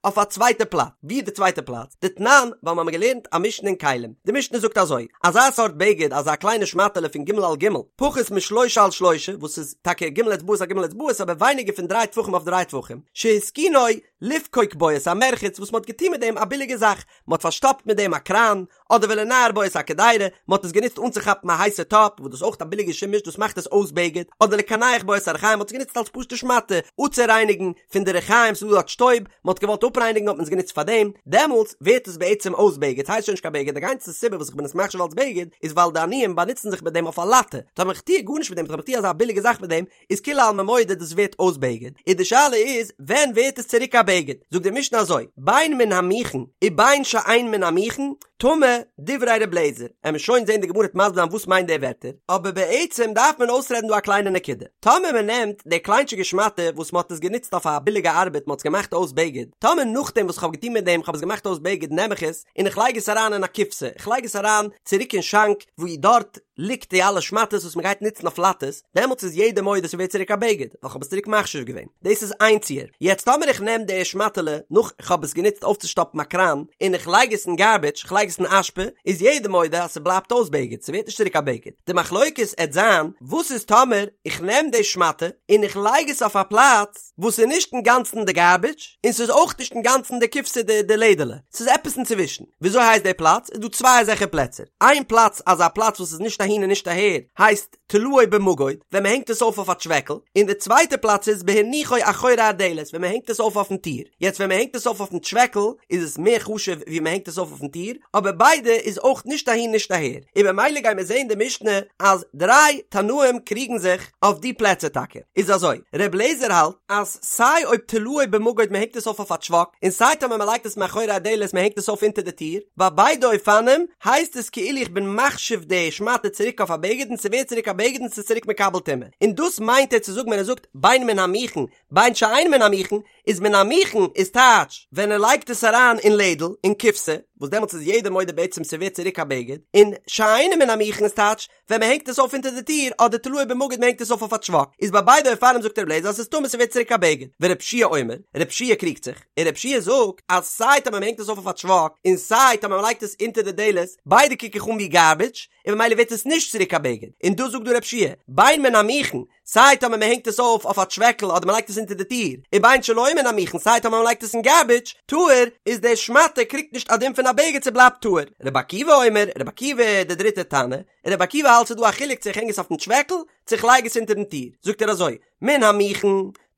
אויף א צווייטע פלאץ, ווי איז די צווייטע פלאץ? דתנן, ווייל מ'האמיר געלערנט א משנה אין כלים, די משנה זאגט אזוי, אזא סארט בגד, אזא קליינע שמאטעלע פון ג' על ג', פחות משלושה על שלושה, וואס איז טאקע ג' אצבעות על ג' אצבעות אבער ווייניגער פון דריי טפחים אויף דריי טפחים, שהתקינו לפקוק בו את המרחץ וואס מ'האט געטון מיט דעם א ביליגע זאך, מ'האט פארשטאפט מיט דעם א קראן, אדער ולנער בו את הקדירה, מען האט עס גענוצט אנצוכאפן א הייסע טאפ, וואס דאס איז אויך א ביליגע שימוש, דאס מאכט עס אויס בגד, אדער לקנח בו את הרחיים, מען האט עס גענוצט אלס פשוטע שמאטע, אפצורייניגן פון די רחיים, ס'איז דא דארט שטויב, מען האט געוואלט אפרייניגן האט מען עס גענוצט פאר דעם, דעמאלטס ווערט עס בעצם אויס בגד, ס'הייסט שוין נישט קיין בגד, די גאנצע סיבה וואס איך בין עס מחשיב אלס בגד, איז ווייל די עניים באנוצן זיך מיט דעם אויף א לאטע, טאמער איך טוה גארנישט מיט דעם, טאמער איך טוה אזא ביליגע זאך מיט דעם, איז כולי עלמא מודה דאס ווערט אויס בגד, און די שאלה איז ווען ווערט עס צוריק א בגד, זאגט די משנה אזוי, בין מן המוכן ובין שאין מן המוכן, טמא, דברי ר' לעזער, עמיר שוין זען די גמרא וועט מסביר זיין וואס מיינט די ווערטער, אבער בעצם דארף מען אויסרעדן דא א קליינע נקודה, טאמער מען נעמט די קליינטשיגע שמאטע וואס מען האט עס גענוצט אויף א ביליגע ארבעט מען האט עס געמאכט אויס בגד, טאמער נאכדעם וואס כ'האב געטון מיט דעם כ'האב עס געמאכט אויס בגד נעם איך עס און איך לייג עס אריין אין א קופסא, איך לייג עס אריין צוריק אין שאנק וואו דארט ליגט די אלע שמאטעס וואס מ'גייט נוצן אויף לאטעס, דעמאלטס איז יעדער מודה ס'ווערט צוריק א בגד, ווייל כ'האב עס צוריק מחשיב געווען. דאס איז איין ציור. יעצט טאמער איך נעם די שמאטעלע נאך כ'האב עס גענוצט אויפצושטאפן א קראן, און איך לייג עס אין גארביטש, כ'לייג עס אין אשפה, איז יעדער מודה אז ס'בלייבט אויס בגד, ס'ווערט נישט צוריק א בגד. די מחלוקת עט זיין, וואס איז טאמער איך נעם די שמאטע און איך לייג עס אויף א פלאץ וואס איז נישט אינגאנצן די גארביטש, און ס'איז אויך נישט אינגאנצן די קופסא די די לעדעלע, ס'איז עפעס אינצווישן. וויאזוי הייסט די פלאץ? איז דא צוויי אזעלכע פלעצער. איין פלאץ אזא פלאץ וואס איז נישט אהין און נישט אהער הייסט תלאו במגוד ווען מ'הענגט עס אויף אויף א טשוועקל, און די צווייטע פלאץ איז בהניחו אחורי הדלת ווען מ'הענגט עס אויף אויפן טיר. יעצט ווען מ'הענגט עס אויף אויפן טשוועקל איז עס מער חשוב ווי מ'הענגט עס אויף אויפן טיר, אבער ביידע איז אויך נישט אהין נישט אהער. און במילא גיימיר זעהן די משנה אז דריי תנאים קריגן זיך אויף די פלעצער טאקע. איז אזוי, ר' לעזער האלט אז סיי אויב תלאו במגוד מען הענגט עס אויף אויף א טשוואק, און סיי טאמער מען לייגט עס מאחורי הדלת מען הענגט עס אויף אונטער די טיר, ביי ביידע אופנים הייסט עס כאילו איך בין מחשיב די שמאטע צוריק אויף א בגד און ס'ווערט צוריק א בגד און ס'איז צוריק מקבל טומאה. און דאס מיינט ער צו זאגן ווען ער זאגט בין מן המוכן בין שאין מן המוכן, איז מן המוכן איז טייטש ווען ער לייגט עס אריין אין לעדל, אין קופסא, וואס דעמאלטס איז יעדער מודה בעצם ס'ווערט צוריק א בגד, און שאינו מן המוכן איז טייטש ווען מען הענגט עס אויף אונטער די טיר אדער תלאו במגוד מען הענגט עס אויף אויף א טשוואק, איז ביי ביידע אופנים זאגט ר' לעזער אז ס'איז טמא ס'ווערט צוריק א בגד, ור' יהושע אומר, ר' יהושע קריגט זיך, און ר' יהושע זאגט אז סיי טאמער מען הענגט עס אויף אויף א טשוואק און סיי טאמער מען לייגט עס אונטער די דלת, ביידע קוק איך אן ווי גארביטש, און ממילא ווערט עס נישט צוריק א בגד, און דאס זאגט דא ר' יהושע, בין מן המוכן, סיי טאמער מען הענגט עס אויף אויף א טשוועקל אדער מען לייגט עס אונטער די טיר, ובין שלא מן המוכן סיי טאמער מען לייגט עס אין גארביטש, טהור, איז די שמאטע קריגט נישט א דין פון א בגד ס'בלייבט טהור. רבי עקיבא אומר, רבי עקיבא די דריטע תנא, רבי עקיבא האלט ס'איז דא א חילוק צו איך הענג עס אויפן טשוועקל צו איך לייג עס אונטערן טיר, זאגט ער אזוי, מן המוכן,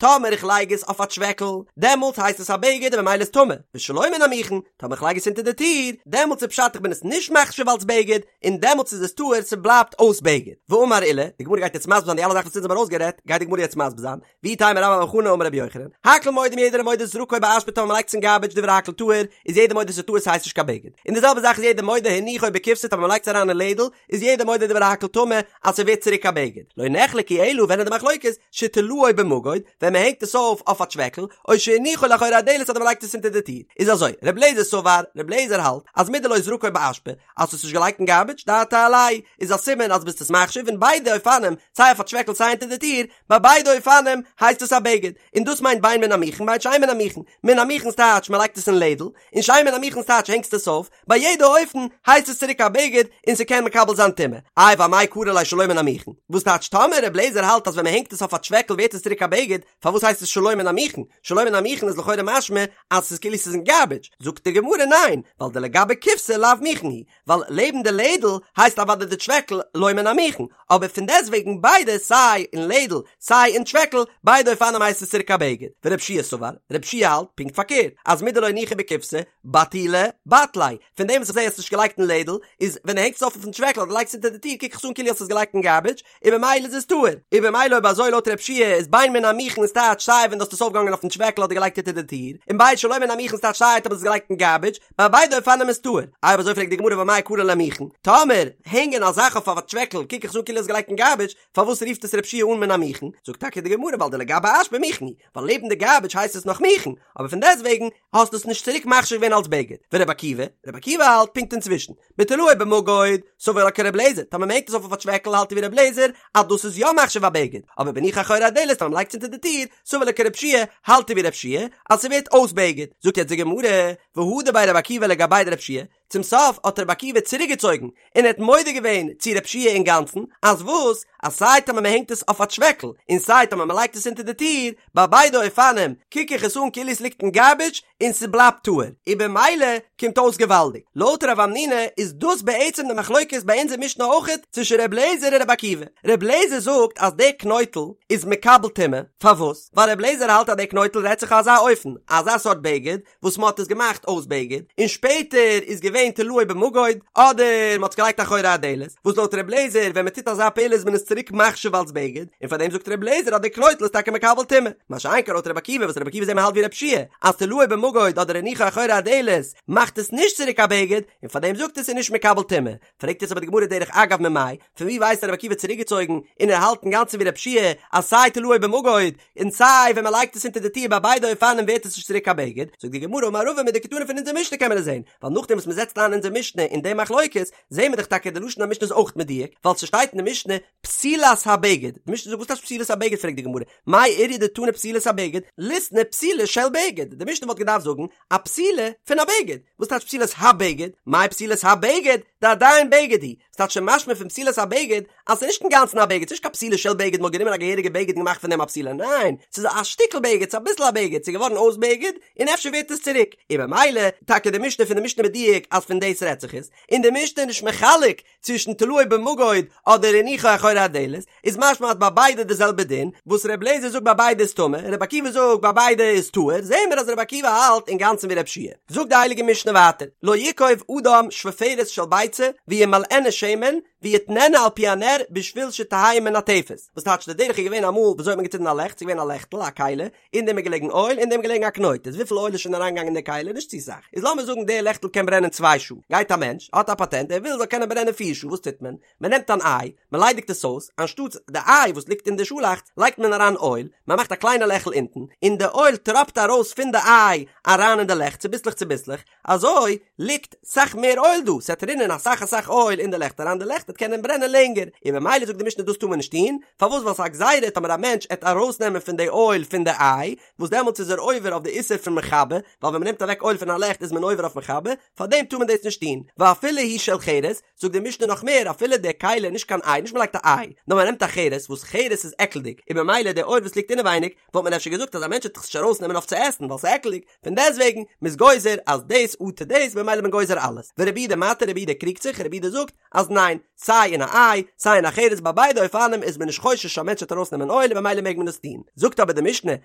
טאמער איך לייג עס אויף א טשוועקל, דעמאלטס הייסט עס א בגד און ממילא איז טמא, ושלא מן המוכן, טאמער איך לייג עס אונטער די טיר, דעמאלטס איז פשט איך בין עס נישט מחשיב אלס בגד, און דעמאלטס איז עס טהור, ס'בלייבט אויס בגד. ואמר עולא, די גמרא גייט יעצט מסביר זיין די אלע זאכן וואס אונז האבן ארויסגערעדט, גייט די גמרא יעצט מסביר זיין, ואיתימא רבה בר בר חנה אמר רבי יוחנן, הכל מודים יעדער איז מודה זרקו באשפה טאמער מ'לייגט עס אין גארבידזש דברי הכל טהור, איז יעדער מודה ס'איז טהור ס'הייסט נישט קיין בגד. און די זעלבע זאך איז יעדער מודה הניחו בקופסא טאמער מ'לייגט עס אריין אין לעדל, איז יעדער מודה דברי הכל טמא אז ס'ווערט צוריק א בגד. לא נחלקו אלא ווען איז די מחלוקת, שתלאו במגוד, ווען מ'הענגט עס אויף אויף א טשוועקל, או שהניחו לאחורי הדלת אדער מ'לייגט עס אונטער די טיר. איז אזוי, ר' לעזער סבר, ר' לעזער האלט, אז מדלא זרקו באשפה, אז האסט עס נישט געלייגט אין גארבידזש, דעתיה עילויה, איז א סימן אז ביסט עס מחשיב אין ביידע אופנים, סיי אויף א טשוועקל סיי אונטער די טיר, ביי ביידע אופנים הייסט עס א בגד, און דאס מיינט בין מן המוכן בין שאין מן המוכן, מן המוכן ס'טייטש מען לייגט עס אין לעדל, און שאין מן המוכן ס'טייטש הענגסט עס אויף, ביי יעדע אופן הייסט עס צוריק א בגד און ס'קען מקבל זיין טומאה. איי ואמאי קרי ליה שלא מן המוכן? וואס טייטש טאמער ר' לעזער האלט אז ווען מען הענגט עס אויף א טשוועקל ווערט עס צוריק א בגד, פארוואס הייסט עס שלא מן המוכן? שלא מן המוכן איז לכאורה משמע אז ס'איז כאילו ס'איז אין גארבידזש, זאגט די גמרא ניין, ווייל דלגבי קופסא לאו מוכן הוא, ווייל לעבן די לעדל הייסט אוודאי די טשוועקל לא מן המוכן, אבער פון דעסטוועגן ביידע סיי אין לעדל סיי אין טשוועקל ביידע אופנים הייסט עס צוריק א בגד, ורב שיע סבר, רב שיע האלט פונקט פארקערט, אז מדלא הניחו בקופסא בטולי בטליה, פון דעם וואס איך זע האסט נישט געלייגט אין לעדל, איז ווען דו הענגסט עס אויף אויפן טשוועקל אדער לייגסט עס אונטער די טיר קוק איך עס אן כאילו האסט עס געלייגט אין גארבידזש, און במילא איז עס טהור, און במילא אויב אזוי לויט רב שיע איז בין מן המוכן איז טייטש סיי ווען דו האסט עס אויפגעהאנגען אויפן טשוועקל אדער געלייגט אונטער די טיר, און בין שלא מן המוכן איז טייטש סיי אויב האסט עס געלייגט אין גארבידזש, ביי ביידע אופנים איז טהור. אויב אזוי פרעגט די גמרא ואמאי קרי ליה מוכן, טאמער הענגען א זאך אויף א טשוועקל קוק איך עס אן כאילו האסט געלייגט אין גארבידזש, פארוואס רופט עס רב שיע אן מן המוכן? זאגט טאקע די גמרא ווייל דלגבי אשפה מוכן הוא, ווייל לעבן די גארבידזש הייסט עס נאך מוכן, אבער פון דעסטוועגן האסטו עס נישט צוריק מחשיב געווען אלס בגד. ורבי עקיבא? רבי עקיבא האלט פונקט אינצווישן. בתלאו במגוד, סבר לה כרבי אליעזר, טאמער מ'הענגט עס אויף אויף א טשוועקל האלט ער ווי רבי אליעזר אז דאס איז יא מחשיב א בגד, אבער בהניחו אחורי הדלת טאמער מ'לייגט עס אונטער די טיר, סבר לה כרבי יהושע, האלט ער ווי רבי יהושע אז ס'ווערט אויס בגד. זאגט יעצט די גמרא, והדר ביה רבי עקיבא לגביה דרבי יהושע, צום סוף האט רבי עקיבא צוריקגעצויגן און ער האט מודה געווען צו רבי יהושע אינגאנצן, אז וואס? אז סיי טאמער מען הענגט עס אויף א טשוועקל, און סיי טאמער מען לייגט עס אונטער די טיר, ביי ביידע אופנים קוק איך עס אן כאילו עס ליגט אין גארבידזש און ס'בלייבט טהור, און במילא קומט אויס געוואלדיג. לויט רב המנונא איז דאס בעצם די מחלוקת ביי אונזער משנה אויכעט צווישן ר' לעזער און רבי עקיבא. ר' לעזער זאגט אז דער קנויטל איז מקבל טומאה, פארוואס? ווייל ר' לעזער האלט אז דער קנויטל רעדט זיך אזא אופן, אזא סארט בגד, וואס מען האט עס געמאכט אויס בגד, און שפעטער איז געווען תלאו במגוד, אדער מען האט עס געלייגט אחורי הדלת, וואס לויט ר' לעזער ווען מען טוט אזא פעולה איז מען עס צוריק מחשיב אלס בגד, און פאר דעם זאגט ר' לעזער אז די קנויטל איז טאקע מקבל טומאה, מה שאין כן לויט ר' עקיבא וואס ר' עקיבא זעט מען האלט ווי ר' יהושע אז תלאו במגוד אדער הניחו אחורי הדלת מאכט עס נישט צוריק א בגד, און פאר דעם זאגט ער ס'איז נישט מקבל טומאה. פרעגט יעצט אבער די גמרא דרך אגב ממאי, פון ווי ווייסט רבי עקיבא צוריקגעצויגן און ער האלט אינגאנצן ווי רבי יהושע אז סיי תלאו במגוד און סיי ווען מען לייגט עס אונטער די טיר ביי ביידע אופנים ווערט עס נישט צוריק א בגד, זאגט די גמרא אמר רבא מדקתני פון אונזער משנה קען מען עס זען, ווייל נאכדעם וואס מען זעצט איין אונזער משנה אין די מחלוקת זעהן מיר דאך טאקע די לשון המשנה איז אויך מדויק, ווייל ס'שטייט אין די משנה פתילת הבגד, די משנה זאגט וואס טייטש פתילת הבגד פרעגט די גמרא מאי איריא דתני פתילת הבגד, ליתני פתילה של בגד, די משנה וואלט געדארפט זאגן א פתילה פון א בגד, וואס טייטש פתילת הבגד? מאי פתילת הבגד? דעדיין בגד הוא, ס'טייטש שוין משמע פון פתילת הבגד אז ס'איז נישט אינגאנצן א בגד, ס'איז נישט קיין פתילה של בגד מ'האט גענומען א געהעריגע בגד און געמאכט פון דעם א פתילה, ניין, ס'איז א שטיקל בגד, ס'איז אביסל א בגד, ס'איז געווארן אויס בגד, און אפשר ווערט עס צוריק, און במילא, טאקע די משנה פון די משנה מדויק אז פון דאס רעדט זיך עס, און די משנה איז נישט מחלק צווישן תלאו במגוד אדער הניחו אחורי הדלת, איז משמע אז ביי ביידע די זעלבע דין, וואס ר' לעזער זאגט ביי ביידע איז טמא, און ר' עקיבא זאגט ביי ביידע איז טהור, זעהן מיר אז ר' עקיבא האלט אינגאנצן ווי ר' יהושע. זאגט די הייליגע משנה ווייטער, לא יקוב אדם שפופרת של ביצה וימלאנה שמן ויתננה על פי הנר בשביל שתהא מנטפת, וואס טייטש די דרך איז געווען אמאל וויאזוי האט מען געצינדן א לעכט, ס'איז געווען א לעכטל, א כלי, אין דעם איז געלעגן אויל, אין דעם איז געלעגן א קנויט, איז וויפיל אויל איז שוין אריינגעגאנגען אין די כלי? נישט צו סאך. איז לאמיר זאגן דער לעכטל קען ברענען צוויי שעה, גייט א מענטש, האט א פאטענט, ער וויל ס'זאל קענען ברענען פיר שעה, וואס טוט מען? מען נעמט אן איי, מען ליידיגט עס אויס, אנשטאטס די איי וואס ליגט אין די שאלאכץ, לייגט מען אריין אויל, מען מאכט א קליינע לעכל אונטן, און די אויל טראפט ארויס פון די איי אריין אין די לעכט צוביסלעך צוביסלעך, אזוי ליגט סאך מער אויל דא, ס'עט רינען אסאך אסאך אויל אין די לעכט אריין, די לעכט וועט קענען ברענען לענגער, און במילא זאגט די משנה דאס טאר מען נישט טון, פארוואס ווייל ס'איז א גזירה טאמער א מענטש עט ארויסנעמען פון די אויל פון די איי, וואס דעמאלטס איז ער עובר אויף די איסור פון מכבה, ווייל ווען מ'נעמט אוועק אויל פון א לעכט איז מען עובר אויף מכבה, פארדעם טאר מען דאס נישט טון, ואפילו היא של חרס, זאגט די משנה נאך מער, אפילו די כלי איז נישט קיין איי, נישט מ'לייגט א איי, נאר מ'נעמט א חרס, וואס חרס איז עקלדיג, און במילא די אויל וואס ליגט אינעווייניג, וואלט מען אפשר געזאגט אז א מענטש וועט עס נישט ארויסנעמען אויף צו עסן ווייל ס'איז עקלדיג, פון דעסטוועגן, מ'איז גוזר אז דאס אטו דאס, במילא איז מען גוזר אלעס. ורבי יהודה מתיר, רבי יהודה קריגט זיך, רבי יהודה זאגט אז ניין, סיי אין א איי, סיי אין א חרס ביי ביידע אופנים איז מען נישט חושש א מענטש וועט ארויסנעמען אויל און במילא מעג מען עס טון. זאגט אבער די משנה,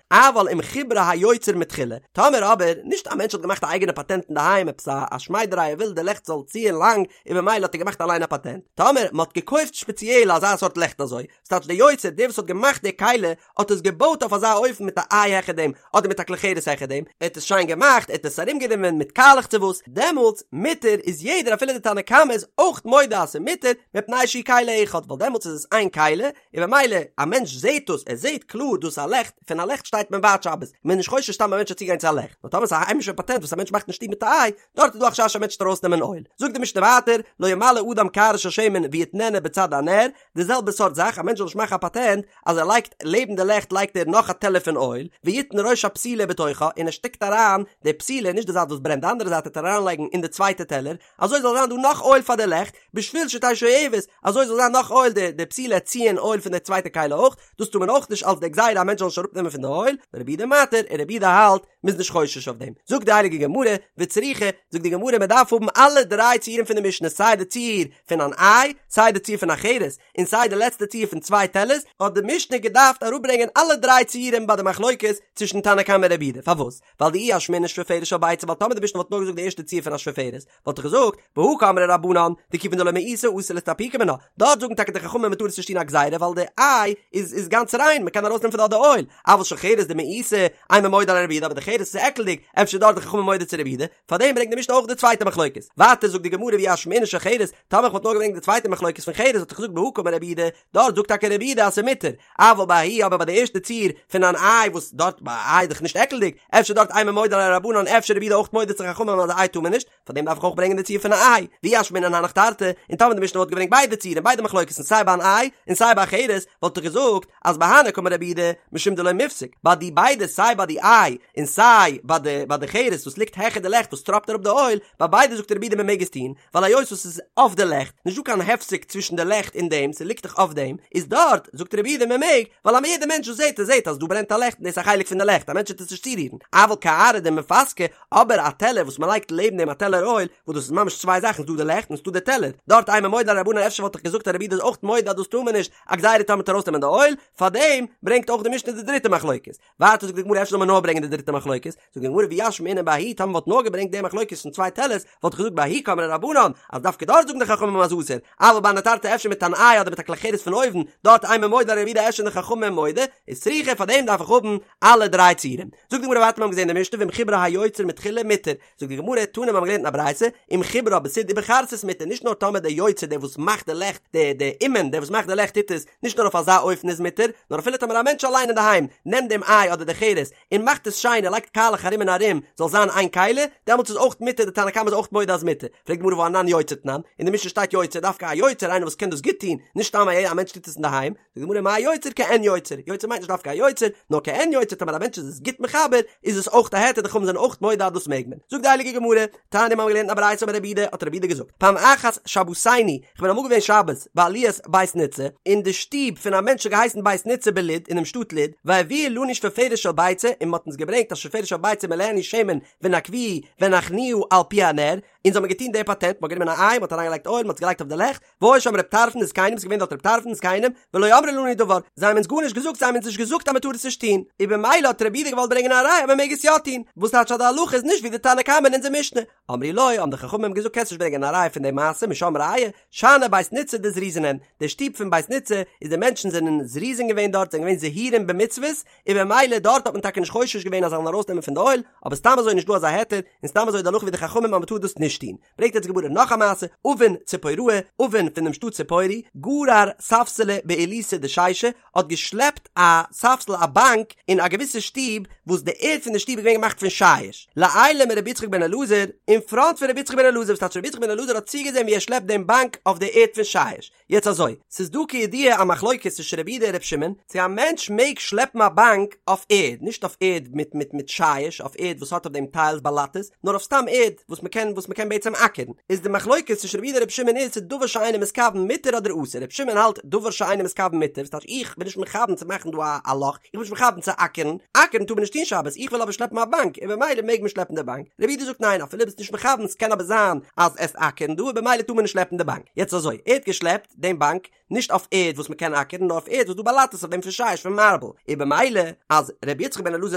אבל אם חיברה היוצר מתחילה, טאמער אבער, נישט א מענטש האט געמאכט א אייגענע פאטענט אינדערהיים עפעס א א שמיידעריי ער וויל די לעכט זאל ציען לאנג און במילא האט ער געמאכט אליין א פאטענט, טאמער מען האט געקויפט שפעציעל אזא סארט לעכט אזוי, ס'טייטש דער יוצר, דער וואס האט געמאכט די כלי, האט עס געבויט אויף אזא אופן מיט א איי העכער דעם, אדער מיט א כלי חרס העכער דעם, ער האט עס שיין געמאכט, ער האט עס ארומגענומען מיט קאלעך צו וואס, דעמאלטס, מותר, איז יעדער אפילו די תנא קמא איז אויך מודה אז ס'איז מותר, מפני שהוא כלי אחד, ווייל דעמאלטס איז עס איין כלי, און במילא, א מענטש זעט דאס, ער זעט קלאר דאס איז א לעכט, פון א לעכט שטייט מען ווייט שבת, מ'איז נישט חושש סתם א מענטש זאל צוגיין צו א לעכט, נאר טאמער ס'איז א היימישע פאטענט וואס א מענטש מאכט אין שטוב מיט א איי, דארט איז דא א חשש א מענטש וועט ארויסנעמען אויל. זאגט די משנה ווייטער, לא ימלא אדם קערה של שמן ויתננה בצד הנר, די זעלבע סארט זאך, א מענטש זאל נישט מאכן א פאטענט אז ער לייגט לעבן די לעכט לייגט ער נאך א טעלער פון אויל, ויתן ראש הפתילה בתוכה, און ער שטעקט אריין די פתילה, נישט די זייט וואס ברענט, די אנדערע זייט וועט ער אריינלייגן אין די צווייטע טעלער, אזוי זאל זיין דא נאך אויל פאר די לעכט, בשביל שתהא שואבת, אזוי זאל זיין נאך אויל, די די פתילה וועט ציען אויל פון די צווייטע כלי אויך, דאס טאר מען אויך נישט אלס די גזירה א מענטש זאל נישט אראפנעמען פון די אויל, ורבי יהודה מתיר, און רבי יהודה האלט, מ'איז נישט חושש אויף דעם. זאגט די הייליגע גמרא, וצריכא, זאגט די גמרא מען דארף האבן אלע דריי ציורים פון די משנה סיי די ציור פון אן איי, סיי די ציור פון א חרס, און סיי די לעצטע ציור פון צוויי טעלערס, האט די משנה געדארפט אראפברענגען אלע דריי ציורים ביי די מחלוקת צווישן תנא קמא און רבי יהודה, פארוואס? ווייל דאי אשמעינן שפופרת של ביצה ווייל טאמער די משנה וואלט נאר געזאגט די ערשטע ציור פון א שפופרת וואלט איך געזאגט בהא קאמרי רבנן דכיון דלא מאיסה אסור לאסתפוקי מינה דארט זאגן טאקע די חכמים מען טאר עס נישט טון א גזירה ווייל די איי איז איז גאנץ ריין מען קען ארויסנעמען פון דארט די אויל אבל של חרס דמאיסה אימא מודה עליה רבי יהודה אבער די חרס איז עקלדיג אפשר דארט די חכמים מודה צו רבי יהודה פארדעם ברענגט די משנה אויך די צווייטע מחלוקת ווייטער זאגט די גמרא ואי אשמעינן של חרס טאמער איך וואלט נאר געברענגט די צווייטע מחלוקת פון חרס וואלט איך געזאגט בהא קאמר רבי יהודה דארט זאגט טאקע רבי יהודה אז ס'איז מותר, אבל בההיא אבער ביי די ערשטע ציור פון אן איי וואס דארט ביי א איי איז דאך נישט עקלדיג, אפשר דארט אימא מודה עליה רבנן אפשר רבי יהודה אויך מודה צו חכמים אז א איי טאר מען נישט, פאר דעם דארף איך אויך ברענגען די ציור פון א איי, ואי אשמעינן הנך תרתי, און טאמער די משנה וואלט געברענגט ביידע ציורים ביידע מחלוקת'ן סיי ביי אן איי און סיי ביי א חרס וואלט איך געזאגט אז בהני קאמר רבי יהודה משום דלא מיפסק ביי די ביידע סיי ביי די איי און סיי ביי די ביי די חרס וואס ליגט העכער די לעכט וואס טראפט אראפ די אויל, ביי ביידע זאגט רבי יהודה מען מעג עס טון, ווייל היות וואס ס'איז אויף די לעכט, נישט דא קיין הפסק צווישן די לעכט און דעם, ס'ליגט דאך אויף דעם, איז דארט, זאגט רבי יהודה מען מעג, ווייל א יעדער מענטש וואס זעט עס זעט אז דא ברענט א לעכט און דאס איז א חלק פון די לעכט, א מענטש וועט עס נישט צורירן, אבל קערה דמיפסקא, אבער א טעלער וואס מען לייגט לעבן דעם א טעלער אויל, וואס דאס איז ממש צוויי זאכן, ס'דא די לעכט און ס'דא די טעלער, דארט אימא מודה עליה רבנן אפשר וואלט איך געזאגט אז רבי יהודה איז אויך מודה אז דאס טאר מען נישט, א גזירה טאמער מ'וועט ארויסנעמען די אויל, פארדעם ברענגט אויך די משנה די דריטע מחלוקת. ווייטער זאגט די גמרא אפשר זאל מען נאר ברענגען די דריטע מחלוקת, זאגט די גמרא ואי אשמעינן בההיא טאמער מ'וואלט נאר געברענגט די מחלוקת פון צוויי טעלערס וואלט איך געזאגט בההיא קאמרי רבנן אז דווקא דארט זאגן די חכמים אז אסור, אבל בהני תרתי אפשר מיט אן איי אדער מיט א כלי חרס פון אויבן, דארט אימא מודה עליה רבי יהודה אפשר די חכמים מודה, איז צריכא פאר דעם דארף איך האבן אלע דריי ציורים. זאגט די גמרא ווייטער מיר האבן געזען די משנה ואם חיברה היוצר מתחילה מותר, זאגט די גמרא, תנא מיר האבן געלערנט אין א ברייתא, אם חיברה בסיד ובחרסית מותר, נישט נאר טאמער דער יוצר דער וואס מאכט די לעכט, דער דער אומן דער וואס מאכט די לעכט טוט עס, נישט נאר אויף אזא אופן איז מותר, נאר אפילו טאמער א מענטש אליין אינדערהיים נעמט דעם איי אדער די חרס און מאכט עס שיין ער לייגט קאלעך ארום און ארום זאל זיין איין כלי, דעמאלטס איז אויך מותר, די תנא קמא איז אויך מודה אז מותר. פרעגט די גמרא והא אנן יוצר תנן, אין די משנה שטייט יוצר דווקא א יוצר איינער וואס קען דאס גוט טון, נישט סתם א מענטש טוט עס אינדערהיים, זאגט די גמרא מאי יוצר כעין יוצר, יוצר מיינט נישט דווקא א יוצר, נאר כעין יוצר טאמער א מענטש איז עס גוט מחבר, איז עס אויך א היתר די חכמים זענען אויך מודה אז דאס מעג מען. זאגט די הייליגע גמרא, תניא מיר האבן געלערנט אין א ברייתא אמר רבי יהודה, האט רבי יהודה געזאגט, פעם אחת שבתינו, כ'בין אמאל געווען שבת בעליית בית ניצא, אין די שטוב פון א מענטש האט געהייסן בית ניצא בלוד, אינעם שטאט לוד, והביאו לנו שפופרת של ביצה, און מ'האט אונז געברענגט א שפופרת של ביצה ומלאנו שמן ונקבוה והנחנוה על פי הנר, אונז האבן געטון די פאטענט, מ'האט גענומען א איי, מ'האט אריינגעלייגט אויל, מ'האט עס געלייגט אויף די לעכט, והיו שם ר' טרפון וזקנים, ס'איז געווען דארט ר' טרפון וזקנים, ולא אמרו לנו דבר, זיי האבן אונז גארנישט געזאגט, זיי האבן אונז נישט געזאגט אז מ'טאר עס נישט טון, און במילא האט רבי יהודה געוואלט ברענגען א ראיה אז מ'מעג עס יא טון, וואס טייטש אז די הלכה איז נישט ווי די תנא קמא אין אונזער משנה? אמרו לו, האבן די חכמים געזאגט קענסט נישט ברענגען א ראיה פון די מעשה משם ראיה, שאני בית ניצא דזריזין הן, די שטוב פון בית ניצא איז די מענטשן זענען זריזין געווען דארט, זענען געווען זהירים במצוות, און במילא דארט האט מען טאקע נישט חושש געווען אז זיי זאלן ארויסנעמען פון די אויל, אבער סתם אזוי איז נישט דא אזא היתר, און סתם אזוי איז די הלכה ווי די חכמים אז מ'טאר דאס נישט טון. ברענגט יעצט די גמרא נאך א מעשה, אבין ציפוראי, אבין פון דעם שטאט ציפורי, גרר ספסלא בעילותא דשישא, האט געשלעפט א ספסל א באנק אין א געוויסע שטוב, וואס די ערד פון די שטוב איז געווען געמאכט פון שיש, לעילא מרבי יצחק בן אלעזר, אין פראנט פון רבי יצחק בן אלעזר, וואס טייטש רבי יצחק בן אלעזר האט צוגעזען ווי ער שלעפט דעם באנק אויף די ערד פון שיש. יעצט אזוי, ס'איז דא כידוע א מחלוקת צווישן רבי יהודה און רבי שמעון, צו א מענטש מעג שלעפן א באנק אויף ערד, נישט אויף ערד מיט מיט מיט שיש, אויף ערד וואס האט אויף דעם טיילס באלאטעס, נאר אויף סתם ערד וואס מ'קען וואס מ'קען בעצם אקערן. איז די מחלוקת צווישן רבי יהודה און רבי שמעון איז צו דבר שאינו מתכוון מותר אדער אסור, רבי שמעון האלט דבר שאינו מתכוון מותר, וואס טייטש איך בין נישט מכוון צו מאכן דא א א לאך, איך בין נישט מכוון צו אקערן, אקערן טאר מען נישט טון שבת, איך וויל אבער שלעפן א באנק, און במילא מעג מען שלעפן די באנק. רבי יהודה זאגט ניין אפילו ביסט נישט מכוון ס'קען אבער זיין אז עסט אקערן דא און במילא טאר מען נישט שלעפן די באנק. יעצט. יעצט אזוי, ער האט געשלעפט דעם באנק נישט אויף ערד וואס מ'קען אקערן נאר אויף ערד וואס דא באלאטעס אויף דעם פון שיש פון מארבל, און במילא אז ר' יצחק בן אלעזר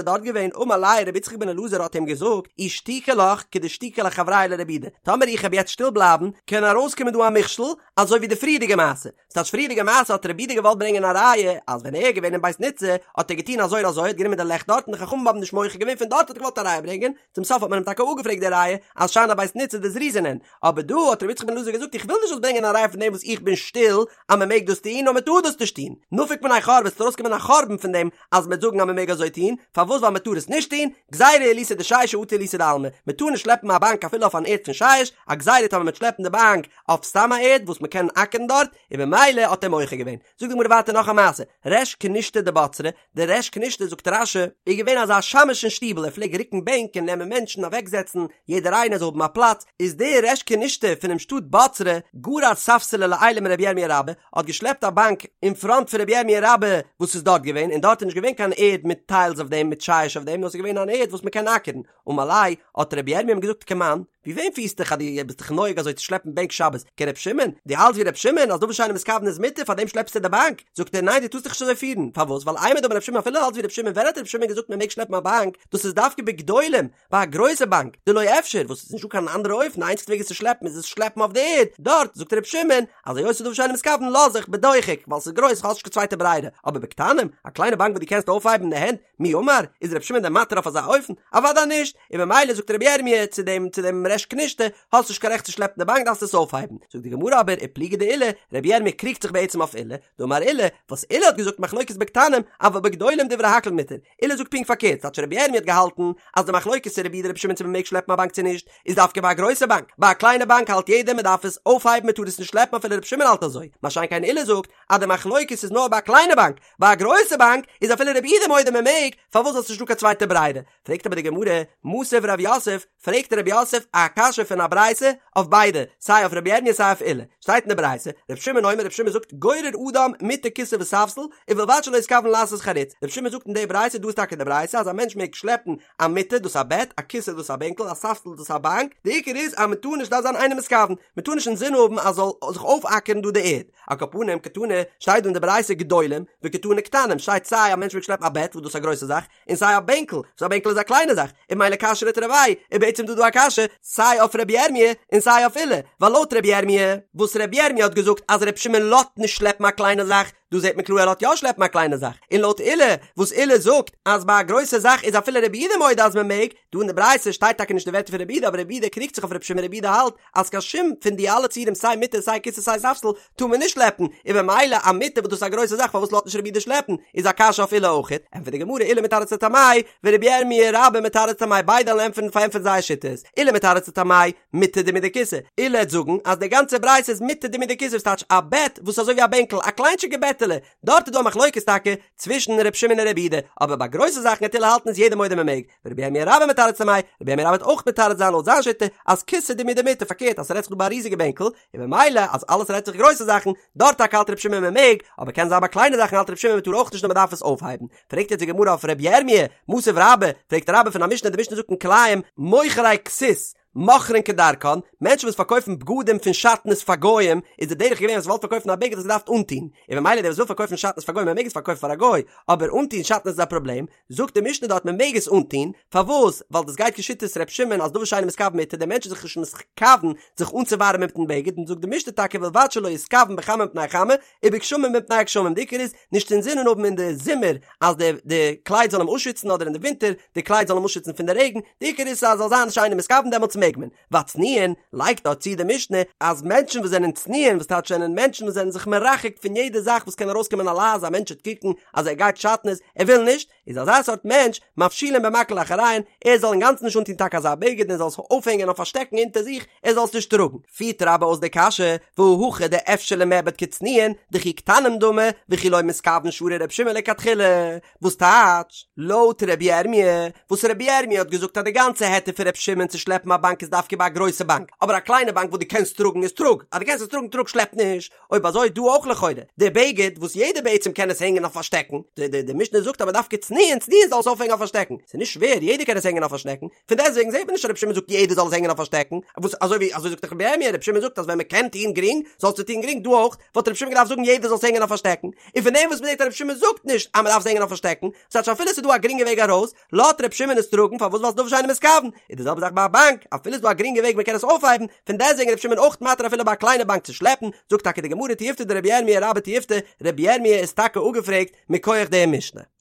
דארט געווען אמר ליה ר' יצחק בן אלעזר האט אים געזאגט אי שתיקי לך כדשתיקי לחבריה לרבי יהודה, טאמער איך העב יעצט שטיל בלייבן קען ארויסקומען דא א מכשול אזוי ווי די פריערדיגע מעשה, ס'טייטש פריערדיגע מעשה האט רבי יהודה געוואלט ברענגען א ראיה אז ווען ער איז געווען אין בית ניצא האט ער געטון אזוי און אזוי האט גענומען די לעכט דארט און די חכמים האבן נישט מוחה געווען פון דארט האט ער געוואלט א ראיה ברענגען, צום סוף האט מען אים טאקע אפגעפרעגט די ראיה אז שאני בית ניצא דזריזין הן, אבער דא האט רבי יצחק בן אלעזר געזאגט איך וויל נישט זאלסט ברענגען א ראיה פון דעם וואס איך בין שטיל אז מען מעג דאס טון נאר מען טאר דאס נישט טון, נפיק מינה חורבה ס'וועט ארויסקומען א חורבן פון דעם אז מען וועט זאגן אז מען מעג אזוי טון, פארוואס ווייל מען טאר עס נישט טון, גזירה עילותא דשישא אטו עילותא דעלמא, מען טאר נישט שלעפן א באנק אפילו אויף אן ערד פון שיש, א גזירה טאמער מען וועט שלעפן די באנק אויף סתם א ערד וואס מען קען אקערן דארט, און במילא האט ער מוחה געווען. זאגט די גמרא ווייטער נאך א מעשה, ריש כנישתא דבצרה, דער ריש כנישתא זאגט רש"י, איז געווען אזא שמש אין שטיבל ער פלעג רוקן בענק און נעמען מענטשן אוועקזעצן יעדער איינער זאל האבן א פלאץ, איז דער ריש כנישתא פונעם שטאט בצרה, גרר ספסלא לעילא מרבי ירמיה רבה, האט געשלעפט א באנק אין פראנט פון רבי ירמיה רבה וואס איז דארט געווען, און דארט איז נישט געווען קיין ערד מיט טיילס אויף דעם מיט שיש אויף דעם נאר ס'איז געווען אן ערד וואס מ'קען אקערן, אמר ליה, האט רבי ירמיה אים געזאגט כמאן, ווי וועם פירסט דיך אז דו ביסט דיך נוהג אזוי צו שלעפן בענק שבת, כר' שמעון? דו האלטסט ווי ר' שמעון אז דבר שאינו מתכוון איז מותר פארדעם שלעפסטו די באנק? זאגט ער ניין דו טארסט דיך נישט אזוי פירן, פארוואס? ווייל אימר דאמר ר' שמעון אפילו האלטסט ווי ר' שמעון ווען האט ר' שמעון געזאגט מען מעג שלעפן א באנק, דאס איז דווקא בגדולים, ביי א גרויסע באנק, דלא אפשר, וואס איז נישטא קיין אנדערע אופן די איינציגסטע וועג עס צו שלעפן איז עס שלעפן אויף די ערד, דארט זאגט ר' שמעון אז היות ס'איז דבר שאינו מתכוון לאז איך בדוחק ווייל ס'איז גרויס כ'האב נישט קיין צווייטע ברירה, אבער בקטנים, א קליינע באנק וואס דו קענסט אויפהייבן אין די הענט, מי אמר, איז רבי שמעון דען מתיר אויף אזא אופן? אוודאי נישט! און ממילא זאגט רבי ירמי' צו דעם צו דעם ריש כנישתא, האסט נישט קיין רעכט צו שלעפן די באנק דארפסט עס אויפהייבן. זאגט די גמרא אבער ופליגא דעולא, רבי ירמי' קריגט זיך בעצם אויף עולא, דאמר עולא, וואס עולא האט געזאגט מחלוקת בקטנים, אבל בגדולים דברי הכל מותר, עולא זאגט פונקט פארקערט, כאטש רבי ירמי' האט געהאלטן אז די מחלוקת פון רבי יהודה רבי שמעון צו מען מעג שלעפן א באנק צו נישט, איז דווקא ביי א גרויסע באנק, ביי א קליינע באנק האלט יעדער מען דארף עס אויפהייבן מען טאר עס נישט שלעפן אפילו רבי שמעון האלט אזוי, מה שאין כן עולא זאגט אז די מחלוקת איז נאר ביי א קליינע באנק, ביי א גרויסע באנק איז אפילו רבי יהודה מודה מען מעג, פארוואס ווייל ס'נישט דא קיין צווייטע ברירה? פרעגט אבער די גמרא, מתיב רב יוסף, פרעגט רב יוסף א קשיא פון א ברייתא אויף ביידע, סיי אויף רבי ירמיה סיי אויף עולא, שטייט אין די ברייתא, רבי שמעון אומר רבי שמעון זאגט גורר אדם מטה כסא וספסל, ובלבד שלא יתכוון לעשות חריץ, רבי שמעון זאגט אין די ברייתא, דא איז טאקע די ברייתא אז א מענטש מעג שלעפן א מטה דאס א בעט, א כסא דאס א בענקל, א ספסל דאס א באנק, די עיקר איז אז מען טאר נישט דארף זיין אינו מתכוון, מען טאר נישט אינזין האבן אז זאל זיך אויפאקערן דא די ערד. על כל פנים קתני, שטייט דא אין די ברייתא גדולים, וקתני קטנים, שטייט סיי א מענטש מעג שלעפן א בעט וואס דאס איז א גרויסע זאך, און סיי א בענקל, וואס א בענקל איז א קליינע זאך, און ממילא קשיא לתרוייהו, איז בעצם דא דא א קשיא, סיי אויף רבי ירמי' און סיי אויף עולא, ווייל לויט רבי ירמי', וואס רבי ירמי' האט געזאגט אז רבי שמעון לאזט נישט שלעפן א קליינע זאך, דא זעט מען קלאר ער לאזט יא שלעפן א קליינע זאך, און לויט עולא, וואס עולא זאגט אז ביי א גרויסע זאך איז אפילו רבי יהודה מודה אז מען מעג, דא אין די ברייתא שטייט טאקע נישט די ווערטער פון רבי יהודה אבער רבי יהודה קריגט זיך אויף רבי שמעון רבי יהודה האלט אז קיין שום פון די אלע ציורים סיי מיטה סיי כסא סיי ספסל טאר מען נישט שלעפן, און במילא א מיטה וואס דאס איז א גרויסע זאך פארוואס לאזט נישט רבי יהודה שלעפן, איז א קשיא אויף עולא אויכעט, ענטפערט די גמרא עולא מתרץ לטעמיה ורבי ירמי' רבה מתרץ לטעמיה ביידע וועלן ענטפערן פארענטפערן זייער שיטות, עולא מתרץ לטעמיה מיטה דומיא דכסא, עולא וועט זאגן אז די גאנצע ברייתא איז מיטה דומיא דכסא וואס טייטש א בעט וואס איז אזוי ווי א בענקל א קליינטשיגע בעטעלע, דארט איז דא א מחלוקת טאקע צווישן ר' שמעון און רבי יהודה, אבער ביי גרויסע זאכן וועט עולא האלטן איז יעדער מודה מען מעג, ורבי ירמי' רבה מתרץ לטעמיה, רבי ירמי' רבה וועט אויך מתרץ זיין לויט זיין שיטה אז כסא דומיא דמיטה פארקערט אז ס'רעדט זיך דא ביי א ריזיגע בענקל, און במילא אז אלעס רעדט זיך גרויסע זאכן, דארט טאקע האלט רבי שמעון מען מעג, אבער קען זיין ביי קליינע זאכן האלט רבי שמעון מען טאר אויך נישט נאר מען דארף עס אויפהייבן. פרעגט יעצט די גמרא אויף רבי ירמי', מתיב רבה, פרעגט רבה פון א משנה, די משנה זאגט אין כלאים, מוכרי כסות, מוכרין כדרכן, מענטשן וואס פארקויפן בגדים פון שעטנז פאר גוים, איז די דרך געווען אז וואלט פארקויפן א בגד האסט געדארפט אנטון, און במילא דער וואס וויל פארקויפן שעטנז פאר גוים ער מעג עס פארקויפן פאר א גוי, אבער אנטון שעטנז איז א פראבלעם, זאגט די משנה דארט מען מעג עס אנטון, פארוואס? ווייל דאס גייט כשיטת ר' שמעון אז דבר שאינו מתכוון מותר, דער מענטש איז זיך נישט מתכוון זיך אנצואווארעמען מיטן בגד, און זאגט די משנה טאקע ובלבד שלא יתכוון בחמה מפני חמה, ובגשמים מפני גשמים, די עיקר איז נישט אינזינען האבן אין די זומער אז די די קלייד זאל אים אפשיצן אדער אין די ווינטער די קלייד זאל אים אפשיצן פון די רעגן, די עיקר איז אז זאל זיין שאינו מתכוון דעמאלטס מעג מען. והצנועין, לייגט דארט צו די משנה אז מענטשן וואס זענען צנועין וואס טייטש זענען מענטשן וואס זענען זיך מרחק פון יעדע זאך וואס קען ארויסקומען א לעז א מענטש וועט קוקן אז ער גייט שעטנז ער וויל נישט, איז אזא סארט מענטש מפשילין במקל לאחוריהן, ער זאל אינגאנצן נישט אנטון טאקע אזא בגד און זאל עס אויפהענגען אויף א שטעקן אונטער זיך, ער זאל עס נישט טראגן. פירט רבה אויס די קשיא, והא הכא דאפשר למיעבד כצנועין, דכי קטנים דמי, וכי לא מתכוון שרי ר' שמעון לכתחילה. וואס טייטש? לויט ר' ירמי', וואס ר' ירמי' האט געזאגט אז די גאנצע היתר פון ר' שמעון צו שלעפן א באנק. באנק איז דווקא ביי א גרויסע באנק, אבער א קליינע באנק וואס דו קענסט טראגן איז טראג, אז דו קענסט עס טראגן טראג שלעפ נישט, אויב אזוי דא אויך לכאורה, די בגד וואס יעדער בעצם קען עס הענגען אויף א שטעקן, די די די משנה זאגט אבער דווקא צנועין צנועין זאל עס אויפהענגען אויף א שטעקן, ס'איז נישט שווער יעדער קען עס הענגען אויף א שטעקן, פון דעסטוועגן זעט מען נישט אז רבי שמעון זאגט יעדער זאל עס הענגען אויף א שטעקן, וואס אזוי ווי אזוי זאגט דאך רבי ירמיה, רבי שמעון זאגט אז ווען מען קען טון גרינג זאלסטו טון גרינג, דא אויך וואלט רבי שמעון געדארפט זאגן יעדער זאל עס הענגען אויף א שטעקן, און פון דעם וואס מען זעט אז רבי שמעון זאגט נישט אז מען דארף עס הענגען אויף א שטעקן, ס'טייטש אפילו ס'איז דא א גרינגע וועג ארויס, לאזט רבי שמעון עס טראגן פארוואס ווייל ס'איז דבר שאינו מתכוון, איז די זעלבע זאך ביי א באנק, אפילו ס'איז דא א גרינגע וועג מען קען עס אויפהייבן, פון דעסטוועגן איז רבי שמעון אויך מתיר אפילו ביי א קליינע באנק צו שלעפן, זאגט טאקע די גמרא תיובתא דרבי ירמיה רבה תיובתא, רבי ירמיה איז טאקע אפגעפרעגט מכח די משנה.